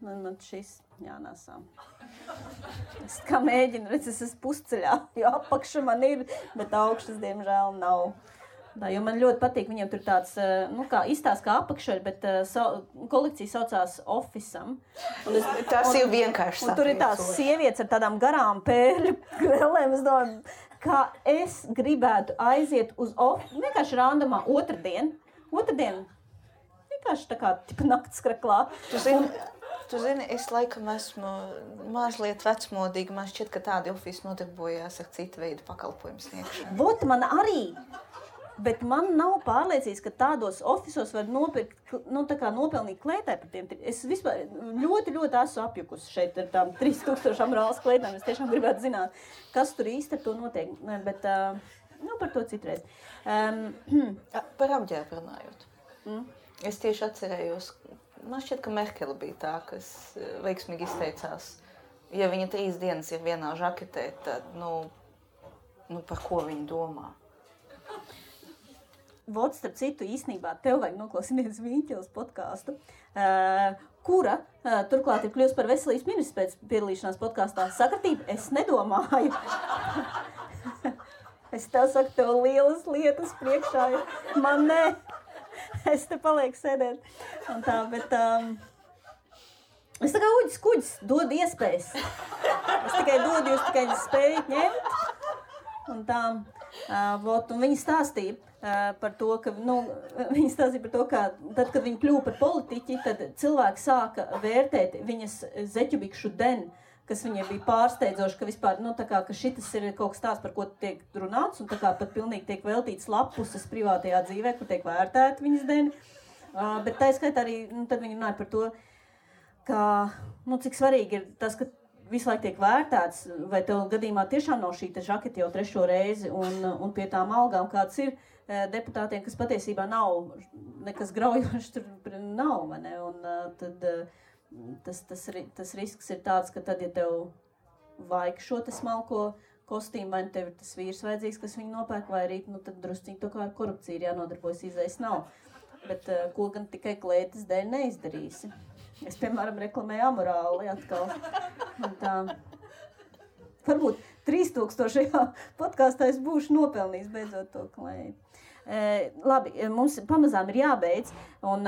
Man šis jānāsā. Es kā mēģinu, es esmu pusceļā, jo apakša man ir, bet augšas, diemžēl, nav. Jo man ļoti patīk, viņiem tur tāds, izstāsts kā apakša, bet kolekcija saucās Office'am. Tas ir vienkārši saprast. Un tur ir tās sievietes ar tādām garām pērļu krellēm. Es domāju, kā es gribētu aiziet uz vienkārši randamā otrdien, vienkārši tā kā tipa naktskraklā. Tu zini, es laikam esmu mazliet vecmodīga. Man šķiet, ka tādi ofici nodarbojās ar citu veidu pakalpojumu sniegšanu. Vot man arī. Bet man nav pārliecības, ka tādos ofisos var nopirkt, nopelnīt klētē par tiem. Es vispār ļoti esmu apjukusi šeit ar tām 3000 amorālas klētēm. Es tiešām gribētu zināt, kas tur īsti ar to notiek. Bet par to citreiz. Par apģērbu runājot. Es tieši atcerējos, man šķiet, ka Merkele bija tā, kas veiksmīgi izteicās. Ja viņa 3 dienas ir vienā žaketē, tad, par ko viņa domā? Vot, starp citu, īstenībā tev vajag noklausīties Vīņķeles podcastu, kura turklāt ir kļuvusi par veselības ministrs pēc piedalīšanās podkastā. Sakritība, es nedomāju. Es tev saku, tev lielas lietas priekšā ir. Man nē. Es te palieku sēdēt. Un tā, bet es tā kā uģis kuģis dodu iespējas. Es tikai dodu, jūs tikai spējat ņemt. Un tā, un viņi stāstīja par to, ka, ka tad, kad viņi kļuva par politiķi, tad cilvēki sāka vērtēt viņas zeķubikšu deni, kas viņai bija pārsteidzoši, ka vispār, ka šitas ir kaut kas tāds, par ko tiek runāts, un tā kā pat pilnīgi tiek veltīts lapuses privātajā dzīvē, kur tiek vērtēta viņas deni. Bet tā skaitā arī, tad viņi runāja par to, ka, cik svarīgi ir tas, ka visu laiku tiek vērtēts, vai tev gadījumā tiešām nav šī žaketa jau 3. reizi, un pie tām algām kāds ir deputātiem, kas patiesībā nav nekas graujošs, tur nav, vai ne? Un tad tas risks ir tāds, ka tad, ja tev vajag šo te smalko kostīmu, vai tev ir tas vīrs vajadzīgs, kas viņu nopērk, vai arī, tad drusciņi to kā ar korupciju ir jānodarbojas, izējas nav. Bet ko gan tikai klētas dēļ neizdarīsi. Es, piemēram, reklamēju amorāli atkal. Un tā. Varbūt 3000. podkāstā es būšu nopelnījis beidzot to klēju. Labi, mums pamazām ir jābeidz, un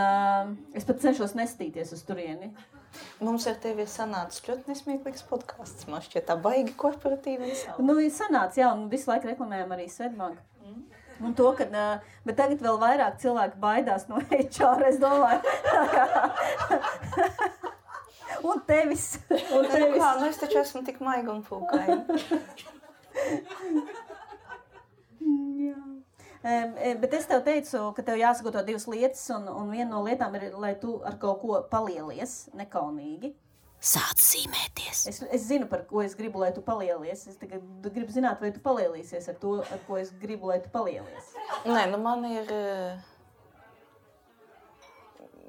es pat cenšos nestīties uz turieni. Mums ar tevi ir sanācis ļoti nesmieklīgs podkāsts. Man šķiet tā baigi korporatīvi. Ir sanācis, jā, un visu laiku reklamējam arī Svetbanku. Un to, bet tagad vēl vairāk cilvēki baidās no HR, es domāju. Un tevis. Es taču esmu tik maiga un pūkaina. Jā. Bet es tev teicu, ka tev jāsagatavo 2 lietas, un viena no lietām ir, lai tu ar kaut ko palielies, nekaunīgi. Sāc zīmēties. Es zinu, par ko es gribu, lai tu palielies. Es tikai gribu zināt, vai tu palielīsies ar to, ar ko es gribu, lai tu palielies. Nē, man ir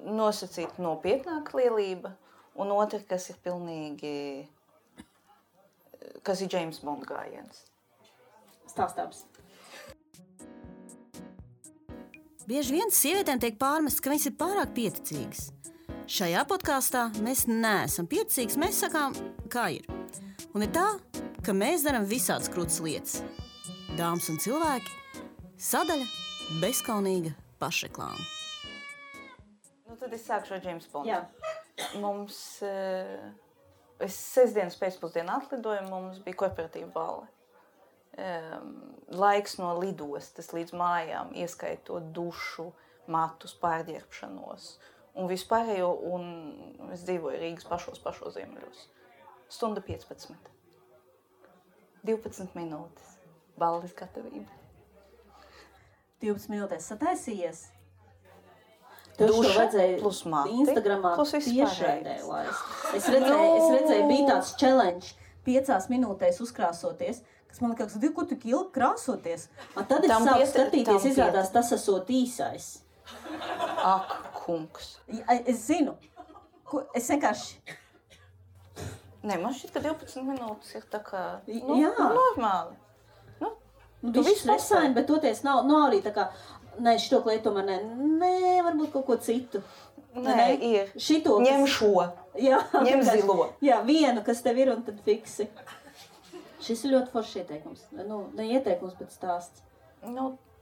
nosacīta nopietnāka lielība, un otra, kas ir pilnīgi, kas ir James Bond gājiens. Stāstāms. Bieži vien sievietēm tiek pārmests, ka viņas ir pārāk pieticīgas. Šajā podkāstā mēs neesam pieticīgas, mēs sakām, kā ir. Un ir tā, ka mēs darām visādas krūtas lietas. Dāmas un cilvēki, sadaļa bezkaunīga pašreklāma. Tad es sākšu ar James Bondu. Jā. Mums, es sestdienas pēcpusdienā atlidoju, mums bija korporatīva balle. Laiks no lidostas līdz mājām, ieskaitot dušu, matus, pārģērbšanos un vispārējo, un es dzīvoju Rīgas pašos ziemeļos. 1:15. 12 minūtes. Balles gatavība. 12 minūtēs sataisījies? Duša plus mati. Instagramā tiešraidē laist. Es redzēju, bija tāds challenge 5 minūtēs uzkrāsoties, kas man liekas, ko tu ilgi krāsoties. Tad es sāku skatīties, izrādās tas esot īsais. Ak, kungs. Es zinu. Es vienkārši... Nē, man šķiet, ka 12 minūtes ir tā kā, normāli. Tu viss resaini, bet toties nav arī tā kā, nē, šito klēt tomēr nē, varbūt kaut ko citu. Nē, ir. Šito, ņem šo. Jā, ņem zilo. Jā, vienu, kas tev ir, un tad fiksi. Šis ir ļoti foršs ieteikums. Ne ieteikums, bet stāsts.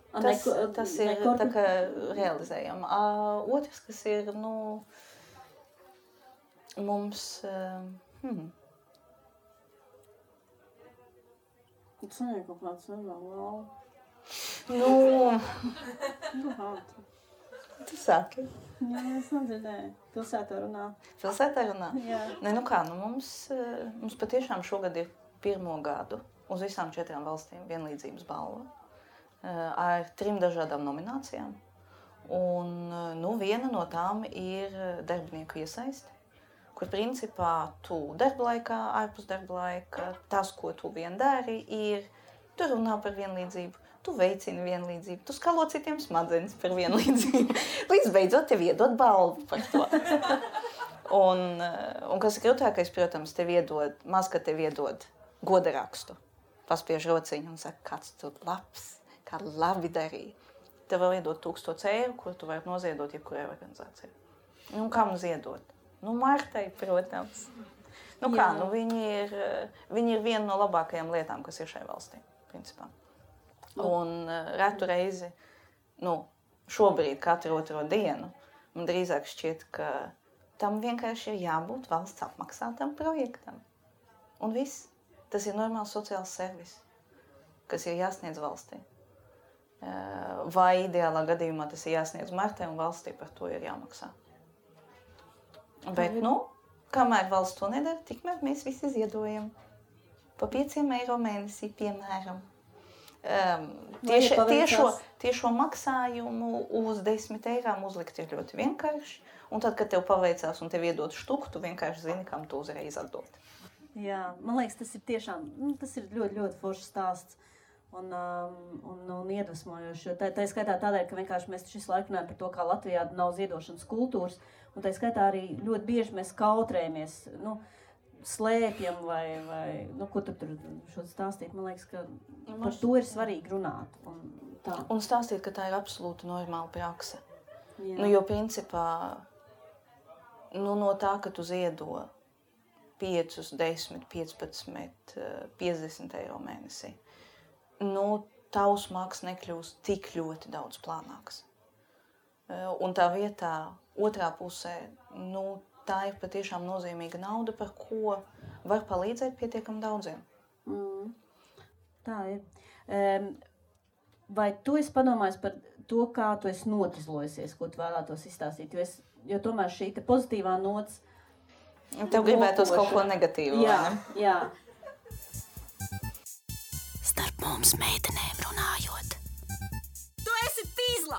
Tas ir tā kā realizējam. Otrs, kas ir, mums... Tas ir kaut kāds nevēl. Tu sāki. Jā, es nedzirdēju. Pilsētā runā. Pilsētā runā? Jā. Nē, mums patiešām šogad ir 1. gadu uz visām 4 valstīm vienlīdzības balva. ar 3 dažādām nominācijām. Un viena no tām ir darbinieku iesaisti, kur principā tu darba laikā, ārpus darba laika, tas, ko tu vien dari, ir tu runā par vienlīdzību, tu veicini vienlīdzību, tu skalo citiem smadzenes par vienlīdzību. Līdz beidzot tev iedod balvu par to. Un kas ir grūtākais, protams, maz, ka tev iedod goda rakstu. Paspiež rociņu un saka, kāds tu labs, kā labi darīja. Tev vēl iedod 1000 eiro, kur tu vari noziedot jebkurai organizācijai. Kam ziedot? Martai, protams. Viņi ir viena no labākajām lietām, kas ir šai valstī, principā. Un retu reizi, šobrīd katru otro dienu, man drīzāk šķiet, ka tam vienkārši ir jābūt valsts apmaksātam projektam. Un viss. Tas ir normāls sociāls servis, kas ir jāsniedz valstī. Vai ideālā gadījumā tas ir jāsniedz Martai un valstī par to ir jāmaksā. Bet, kamēr valsts to nedara, tikmēr mēs visi ziedojam. Pa 5 eiro mēnesī, piemēram. Tiešo maksājumu uz 10 eirām uzlikt ir ļoti vienkārši. Un tad, kad tev paveicās un tev iedod štuku, tu vienkārši zini, kam tu uzreiz atdod. Jā, man liekas, tas ir tiešām, tas ir ļoti, ļoti foršs stāsts un iedvesmojoši. Tā skaitā tādēļ, ka vienkārši mēs šis laiku runājam par to, kā Latvijā nav ziedošanas kultūras, un tā skaitā arī ļoti bieži mēs kautrējamies, slēpjam vai ko tur šo stāstīt. Man liekas, ka par to ir svarīgi runāt. Un stāstīt, ka tā ir absolūti normāla prakse. Jo principā, no tā, ka tu ziedo 5, 10, 15, 50 eiro mēnesī, tavs maks nekļūst tik ļoti daudz plānāks. Un tā vietā, otrā pusē, tā ir patiešām nozīmīga nauda, par ko var palīdzēt pietiekam daudziem. Tā ir. Vai tu esi padomājis par to, kā tu esi notizlojusies, ko tu vēlētos izstāstīt? Jo tomēr šī te pozitīvā nots... Tev gribētos kaut ko negatīvu, vai ne? Jā. Starp mums meitenēm runājot. Tu esi tīzla!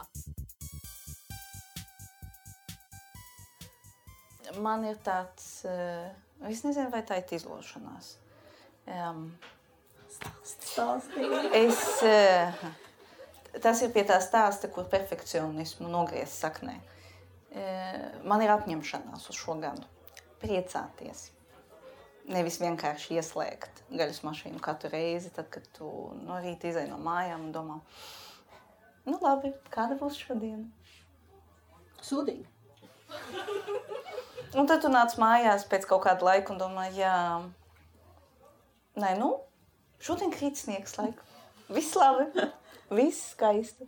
Man ir tāds... Es nezinu, vai tā ir tīzlošanās. Tas ir pie tā stāsta, kur perfekcionismu nogriez saknē. Man ir apņemšanās uz šo gadu. Priecāties. Nevis vienkārši ieslēgt gaļas mašīnu katru reizi, tad, kad tu no rīta izej no mājām un domā, labi, kāda būs šodien? Sūdīgi. Un tad tu nāc mājās pēc kaut kāda laika un domā, šodien krīt sniegs laiku. Viss labi, viss skaisti.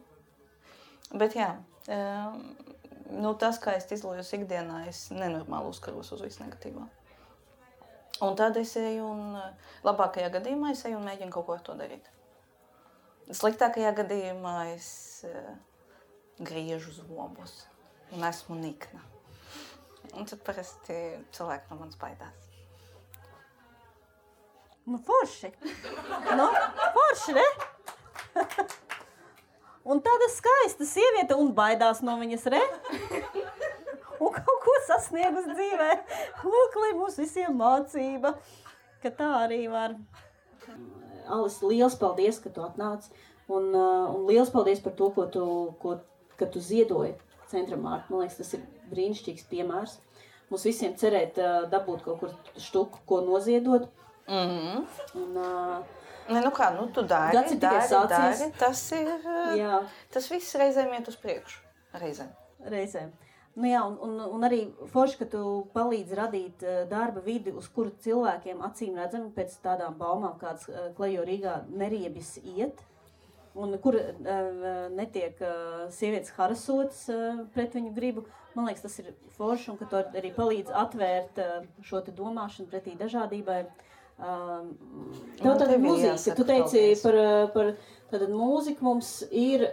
Bet tas, kā es izlojos ikdienā, es nenormāli uzkaros uz visu negatīvā. Un tad es eju un, labākajā gadījumā, es eju un mēģinu kaut ko ar to darīt. Sliktākajā gadījumā es griežu zobus un esmu nikna. Un tad parasti cilvēki no manis baidās. Forši. Forši, ne? Un tāda skaista sieviete un baidās no viņas, re? Un kaut ko sasniegus dzīvē. Lūk, lai mums visiem mācība, ka tā arī var. Alis, liels paldies, ka tu atnāc. Un liels paldies par to, ka tu ziedoji Centram Marta. Man liekas, tas ir brīnišķīgs piemērs. Mums visiem cerēt dabūt kaut kur štuku, ko noziedot. Tu dari. Tas viss reizēm iet uz priekšu. Reizēm. Un arī forši, ka tu palīdzi radīt darba vidi, uz kuru cilvēkiem acīm redzami pēc tādām baumām, kādas Klejo Rīgā neriebjas iet, un kur netiek sievietes harasotas pret viņu gribu. Man liekas, tas ir forši, un ka tu arī palīdzi atvērt šo te domāšanu pretī dažādībai. Tev tāda mūzika, tu teici par tātad mūziku mums ir,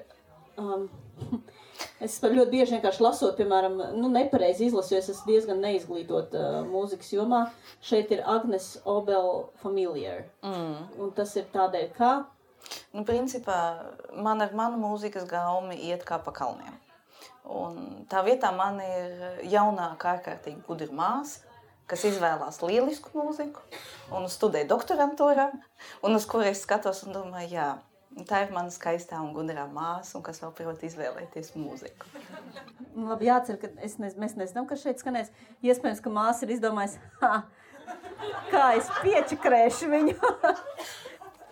es ļoti bieži vienkārši lasot, piemēram, nepareizi izlasu, jo es esmu diezgan neizglītot mūzikas jomā. Šeit ir Agnes Obel Familiar, un tas ir tādēļ, kā? Principā, man ar manu mūzikas gaumi iet kā pa kalniem. Un tā vietā man ir jaunāka, ārkārtīgi gudra māsa, kas izvēlās lielisku mūziku un studē doktorantūrā, un uz kuru es skatos un domāju, jā, tā ir mana skaistā un gudrā māsa, un kas vēl prot izvēlēties mūziku. Labi, jācer, ka mēs nezinām, kas šeit skanēs. Iespējams, ka māsa ir izdomājis, kā es piečakrēšu viņu.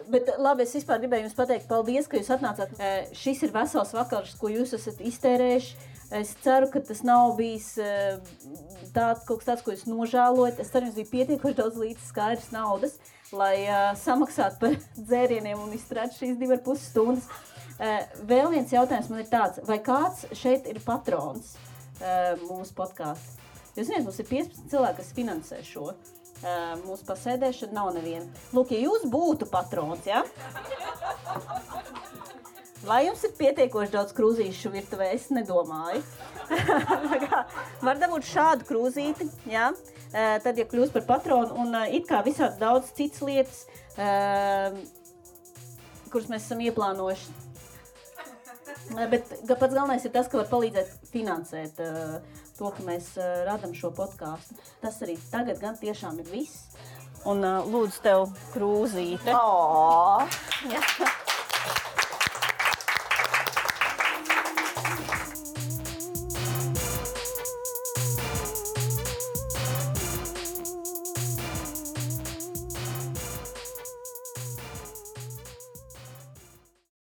Bet labi, es vispār gribēju jums pateikt, paldies, ka jūs atnācāt. Šis ir vesels vakars, ko jūs esat iztērējuši. Es ceru, ka tas nav bijis kaut kas tāds, ko jūs nožēlojat. Es ceru, jums bija pietiekoši daudz līdz skaidrs naudas, lai samaksātu par dzērieniem un izturētu šīs 2,5 stundas. Vēl viens jautājums man ir tāds, vai kāds šeit ir patrons mūsu podkāstu? Jūs zināt, mums ir 15 cilvēki, kas finansē šo. Mūsu pasēdēšana nav neviena. Lūk, ja jūs būtu patrons, ja? Vai jums ir pietiekoši daudz krūzīšu virtuvē, es nedomāju. Var dabūt šādu krūzīti, ja? Tad, ja kļūst par patronu, un it kā visāds daudz citas lietas, kuras mēs esam ieplānojuši. Bet pats galvenais ir tas, ka var palīdzēt finansēt to, ka mēs radam šo podkāstu. Tas arī tagad gan tiešām ir viss. Un lūdzu tev krūzīte. Oh.